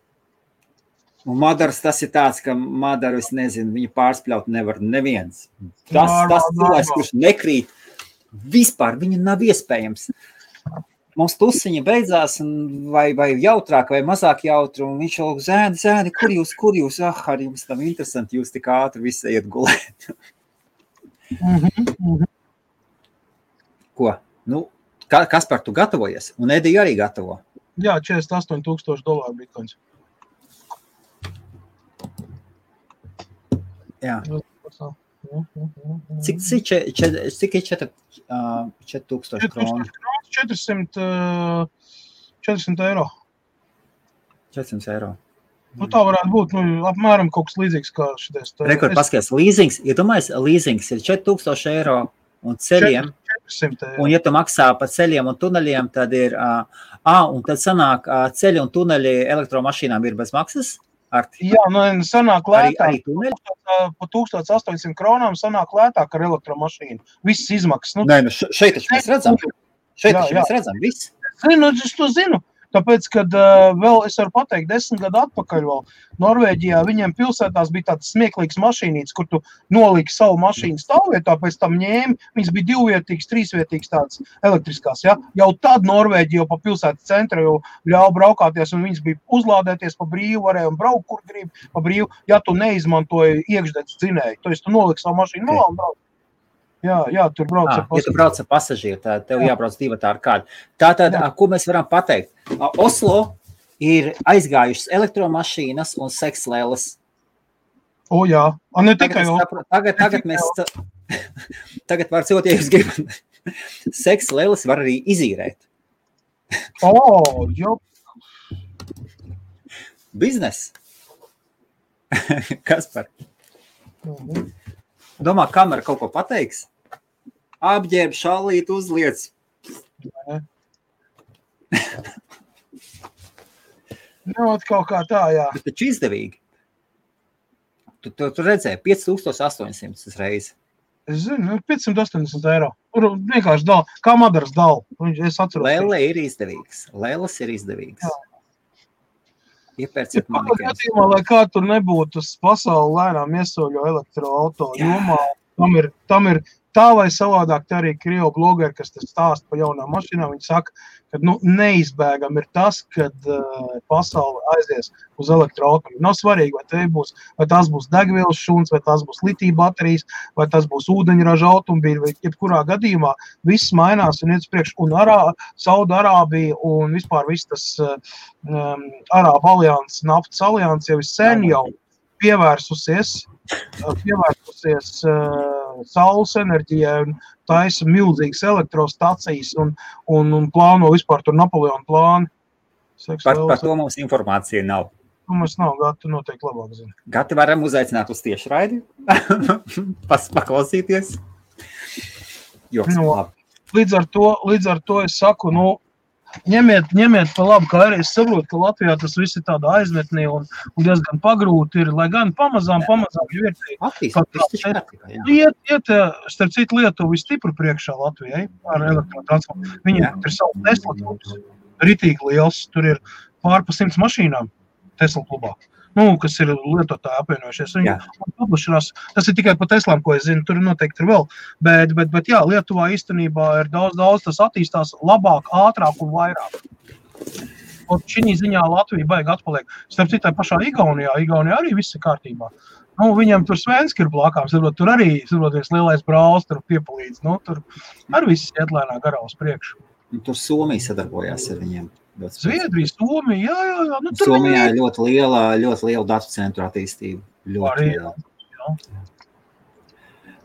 Speaker 1: un Madars tas ir tāds, ka Madaru, es nezinu, viņu pārspļaut nevar neviens. Tas cilvēks, kurš nekrīt, vispār viņu nav iespējams. Mums tusiņa beidzās, vai jautrāk, vai mazāk jautri, un viņš jau zēni, kur jūs, ar jums tam interesanti, jūs tik ātri visi iet gulēt. Ko? Nu, kas par tu gatavojies? Un Edija arī gatavo?
Speaker 2: Jā, $48,000 bitcoins.
Speaker 1: Jā. Cik ir 4,000 kronu?
Speaker 2: 400 eiro.
Speaker 1: 400 eiro.
Speaker 2: Nu, tā varētu būt, apmēram kaut kas līdzīgs kā šitais.
Speaker 1: Rekord paskaties, līzings, iedomājies, līzings ir 4,000 eiro un ceļiem.
Speaker 2: 400 eiro.
Speaker 1: Un ja tu maksā pa ceļiem un tuneļiem, tad ir, un tad sanāk ceļi un tuneļi elektromašīnām ir bez maksas?
Speaker 2: Jā, sanāk lētāk.
Speaker 1: Arī tuneļi?
Speaker 2: Pa 1800 kronām sanāk lētāk ar elektromašīnu. Viss izmaksas.
Speaker 1: Nē, šeit taču mēs redzam. Mēs redzam, viss.
Speaker 2: Es to zinu. Tāpēc, kad vēl es varu pateikt, 10 gadu atpakaļ vēl Norvēģijā viņiem pilsētās bija tāds smieklīgs mašīnīts, kur tu noliki savu mašīnu stāvvietā, pēc tam ņēmi, viņas bija 2-vietīgas, 3-vietīgas tādas elektriskās, ja? Jau tad Norvēģija jau pa pilsētas centra jau ļauj braukāties, un viņas bija uzlādēties pa brīvu, varēja un braukt, kur grib pa brīvu, ja tu neizmantoji iekšdedz dzinēju. To es tu noliki savu mašīnu malā un brauc. Jā, tur brauc ar pasažieru.
Speaker 1: Ja tu brauc ar pasažieru, tad tev jābrauc divatā ar kādu. Tātad, ko mēs varam pateikt? Oslo ir aizgājušas elektromašīnas un sekslēles.
Speaker 2: Jā, ne tikai
Speaker 1: Tagad mēs... Tagad var cilvēt, ja jūs gribat. Sekslēles var arī izīrēt.
Speaker 2: Jo.
Speaker 1: Biznes. Kas par? Domā, kamera kaut ko pateiks? Apģērb, šallīt, uzliec.
Speaker 2: Kaut kā tā, jā.
Speaker 1: Bet taču izdevīgi. Tu redzēji, 5,800 reizi.
Speaker 2: Es zinu, 580 eiro. Vienkārši dal, kā Madaras dal. Es atceros.
Speaker 1: Lēle ir izdevīgs. Lēles ir izdevīgs. Iepērciet manikēns.
Speaker 2: Lai kā tur nebūtu, pasauli lēnām iesoļo elektroauto jomā, tam ir tā vai savādāk, tā arī Krievu blogeri, kas stāsta par jaunām mašīnām, viņi saka, ka neizbēgam ir tas, kad pasaule aizies uz elektroautomobīļu. Nav svarīgi, vai tās būs degvielas šūns, vai tās būs litija baterijas, vai tas būs ūdeņraža automobīļi, vai jebkurā gadījumā viss mainās un iet uz priekšu. Un Saudarābija un vispār viss tas Arābu alianses, naftas alianses jau sen jau pievērsusies saules enerģijai un taisa milzīgas elektrostacijas un plāno vispār tur Napoleona plānu.
Speaker 1: Par to mums informācija nav.
Speaker 2: Mums nav, Gati noteikti labāk zina.
Speaker 1: Gati varam uzaicināt uz tiešraidi, paklausīties. Joks,
Speaker 2: līdz ar to es saku, ņemiet pa labu, kā arī es saprotu, ka Latvijā tas viss ir tāda aizmetnī un diezgan pagrūti ir, lai gan pamazām jau ir iet, starp citu Lietuvu stipri priekšā Latvijai ar elektrotransportu. Viņiem ir savu Tesla klubs, ritīgi liels, tur ir pār pa 100 mašīnām Tesla klubā. Kas ir lietotāji apvienojušies. Tas ir tikai pa Teslām, ko es zinu, tur noteikti ir vēl. Bet jā, Lietuvā īstenībā ir daudz, tas attīstās labāk, ātrāk un vairāk. Un šī ziņā Latvija baigi atpaliek. Starp citai pašā Igaunijā arī viss ir kārtībā. Viņam tur Svenski ir blakām, tur arī viens lielais brālis, tur piepalīdz. Tur arī viss iet lēnā garā uz priekšu.
Speaker 1: Tur Somija sadarbojās ar viņiem.
Speaker 2: Zviedrija, Somija, jā.
Speaker 1: Somijā ir ļoti liela datu centru attīstība. Ļoti liela.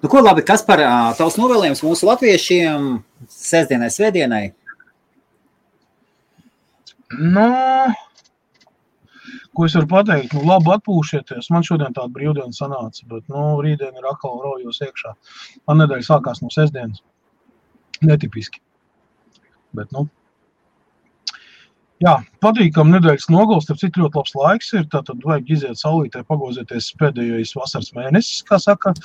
Speaker 1: Ko labi, kas par tavs novēlējums mūsu latviešiem sestdienai, svētdienai?
Speaker 2: Ko es varu pateikt? Labi atpūšieties. Man šodien tāda brīvdiena sanāca, bet rītdien ir atkal raujos iekšā. Man nedēļa sākās no sestdienas. Netipiski. Bet, jā, patīkam nedēļas nogals, starp citu ļoti labs laiks ir, tātad vajag iziet saulītē, pagozieties pēdējais vasaras mēnesis, kā saka,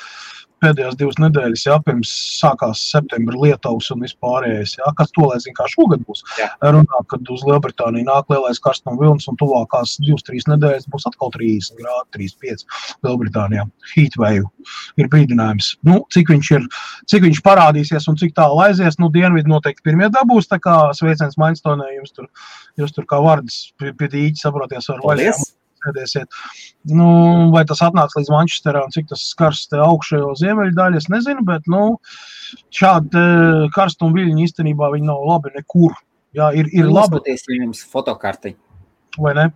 Speaker 2: pēdējās 2 nedēļas, jā, pirms sākās septembra Lietuvas un vispārējais, jā, kas to, lai zina, kā šogad būs. Runā, kad uz Lielbritāniju nāk lielais karstuma vilnis un tuvākās 2-3 nedēļas būs atkal 30 grādi, 35 Lielbritānijā. Heatwave ir brīdinājums. Cik viņš parādīsies un cik tālu aizies, dienvidi noteikti pirmie dabūs, tā kā sveiciens Mainstonē, jūs tur kā vardas pie dīķi, saproties, var vaļām. Vai tas atnāks līdz Manchesterā un cik tas skars te augšējo ziemeļu daļu, es nezinu, bet šādi karstuma viļņi īstenībā viņi nav labi nekur. Jā, ir labi.
Speaker 1: Uzpaties jums fotokarti.
Speaker 2: Vai ne?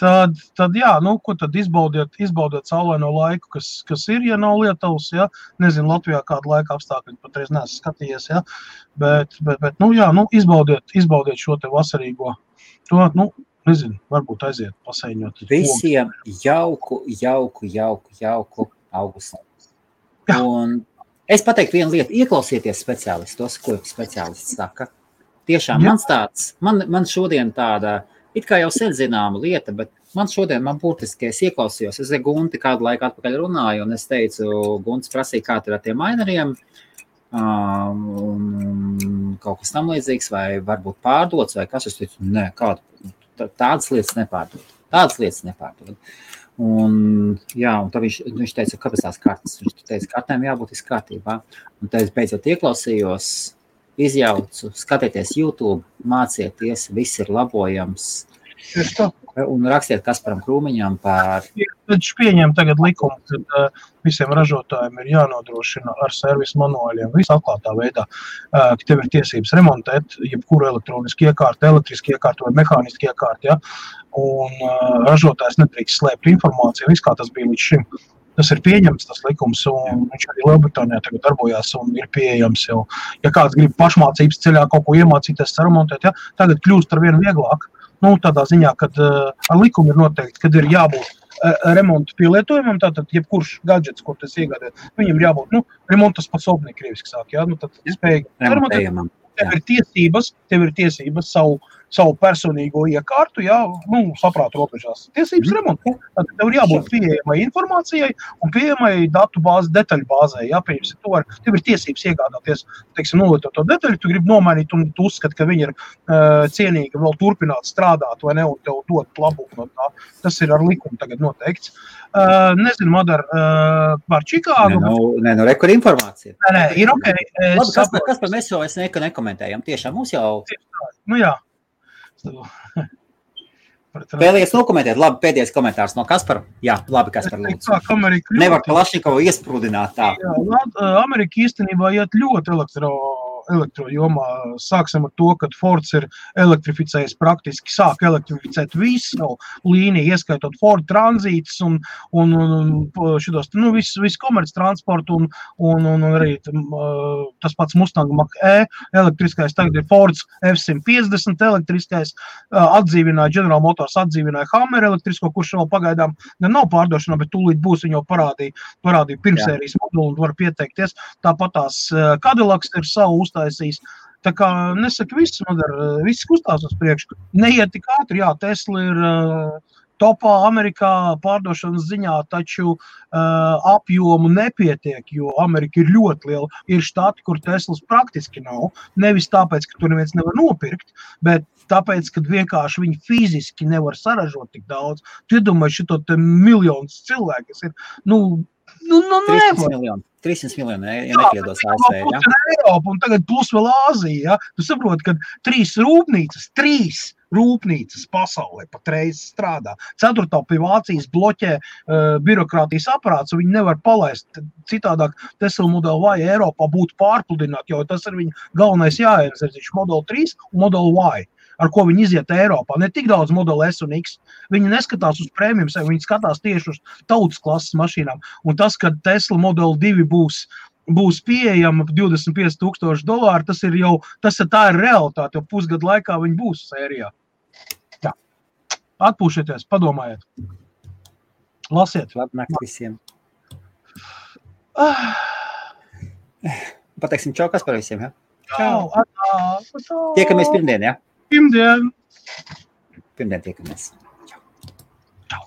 Speaker 2: Tad jā, ko tad izbaudiet saulaino laiku, kas ir, ja nav Lietuvas, jā. Nezinu, Latvijā kādu laika apstākļi, patreiz neesmu skatījies, jā. Bet jā, izbaudiet šo te vasarīgo. Nezinu, varbūt aiziet pasaiņot.
Speaker 1: Visiem jauku augustu. Un es pateiktu vienu lietu, ieklausieties speciālistos, ko speciālists saka. Tiešām man šodien tāda, it kā jau sen zināma lieta, bet man būtiski, es ieklausījos, es ar Gunti kādu laiku atpakaļ runāju, un es teicu, Gunts prasīja, kā ir ar tiem maineriem, kaut kas tam līdzīgs, vai varbūt pārdots, vai kas, es teicu, nē, tādas lietas nepārdod. Un tad viņš teica, kāpēc tās kartas? Viņš teica, kartēm jābūt kārtībā. Un tad es beidzot ieklausījos, izjaucu, skatieties YouTube, mācieties, viss ir labojams. Un rakstiet Kasparam Krūmiņam par...
Speaker 2: Viņš pieņem tagad likumu, ka visiem ražotājiem ir jānodrošina ar servisu manuāļiem visu atklātā veidā, ka tev ir tiesības remontēt jebkuru elektronisku iekārtu, elektrisku iekārtu vai mehānisku iekārtu, ja? Un ražotājs nedrīkst slēpt informāciju, viss kā tas bija līdz šim. Tas ir pieņemts, tas likums, un viņš arī Lielbritānijā tagad darbojās un ir pieejams jau. Ja kāds grib pašmācības ceļā kaut ko iemācīties remontēt, ja? Tagad kļūst ar vienu vieglāk. Tādā ziņā, kad ar likumu ir noteikti, kad ir jābūt remontu pielietojumam, tātad jebkurš gadžets, ko tas iegādāt, viņam ir jābūt, remontas pasobnī krieviski sāk, jā, tad spēj remontēt. Tev ir tiesības savu savu personīgo iekārtu, saprātu robežās. Tiesības remontē. Tad tev ir jābūt pieejamai informācijai un pieejamai datu bāzi, detaļu bāzē. Tev ir tiesības iegādāties, teiksim, to detaļu, tu gribi nomainīt un tu uzskati, ka viņi ir cienīgi vēl turpināt strādāt vai ne, un tev dot labumu no tā. Tas ir ar likumu tagad noteikts. Nezinu, Madar, par Čikāgu.
Speaker 1: Rekur informācija.
Speaker 2: Nē, ir ok.
Speaker 1: Labi, kas par mēs jau nekomentējam? Tiešām mums jau...
Speaker 2: Nu jā.
Speaker 1: Vēlies nokomentēt? Labi, pēdējais komentārs no Kaspara. Jā, labi, Kaspar, lūdzu. Nevar Kalašnikovu iesprūdināt tā.
Speaker 2: Jā, Amerika īstenībā iet ļoti elektrojomā. Sāksim ar to, ka Fords ir elektrificējis praktiski, sāk elektrificēt visu līniju, ieskaitot Ford tranzītus un šitos, visu komerc transportu un arī tas pats Mustang Mach-E elektriskais, tagad ir Fords F-150 elektriskais, atdzīvināja General Motors, atdzīvināja Hammer elektrisko, kurš vēl pagaidām nav pārdošanā, bet tūlīt būs, viņu parādīja pirmsērijas modulu un var pieteikties. Tāpat tās Cadillacs ir savu uztaisījis. Tā kā nesaka viss kustās uz priekšu. Neiet tik ātri, jā, Tesla ir topā Amerikā pārdošanas ziņā, taču apjomu nepietiek, jo Amerika ir ļoti liela. Ir štati, kur Teslas praktiski nav. Nevis tāpēc, ka tur neviens nevar nopirkt, bet tāpēc, ka vienkārši viņi fiziski nevar saražot tik daudz. Tu iedomāji šito te miljonus cilvēku, kas ir,
Speaker 1: 300 miljoni, ja nekļiedos ASV, ja?
Speaker 2: Eiropa, un tagad plus vēl Āzija, ja? Tu saproti, ka 3 rūpnīcas pasaulē patreiz strādā. 4. pie Vācijas bloķē birokrātijas aparāts, un viņi nevar palaist. Citādāk Tesla Model Y Eiropā būtu pārpludināt, jo tas ir viņa galvenais jāienzerziņš Model 3 un Model Y, ar ko viņi iziet Eiropā. Ne tik daudz Model S un X. Viņi neskatās uz prēmijum, viņi skatās tieši uz tautas klases mašīnām. Un tas, ka Tesla Model 2 būs pieejama $25,000, tā ir realitāte, jo pusgadu laikā viņi būs sērijā. Jā. Atpūšieties, padomājiet. Lasiet.
Speaker 1: Labnakt visiem. Pateiksim čau, kas par visiem, ja?
Speaker 2: Čau.
Speaker 1: Tiekamies pirmdien, ja?
Speaker 2: Pirmdien
Speaker 1: tiekamies.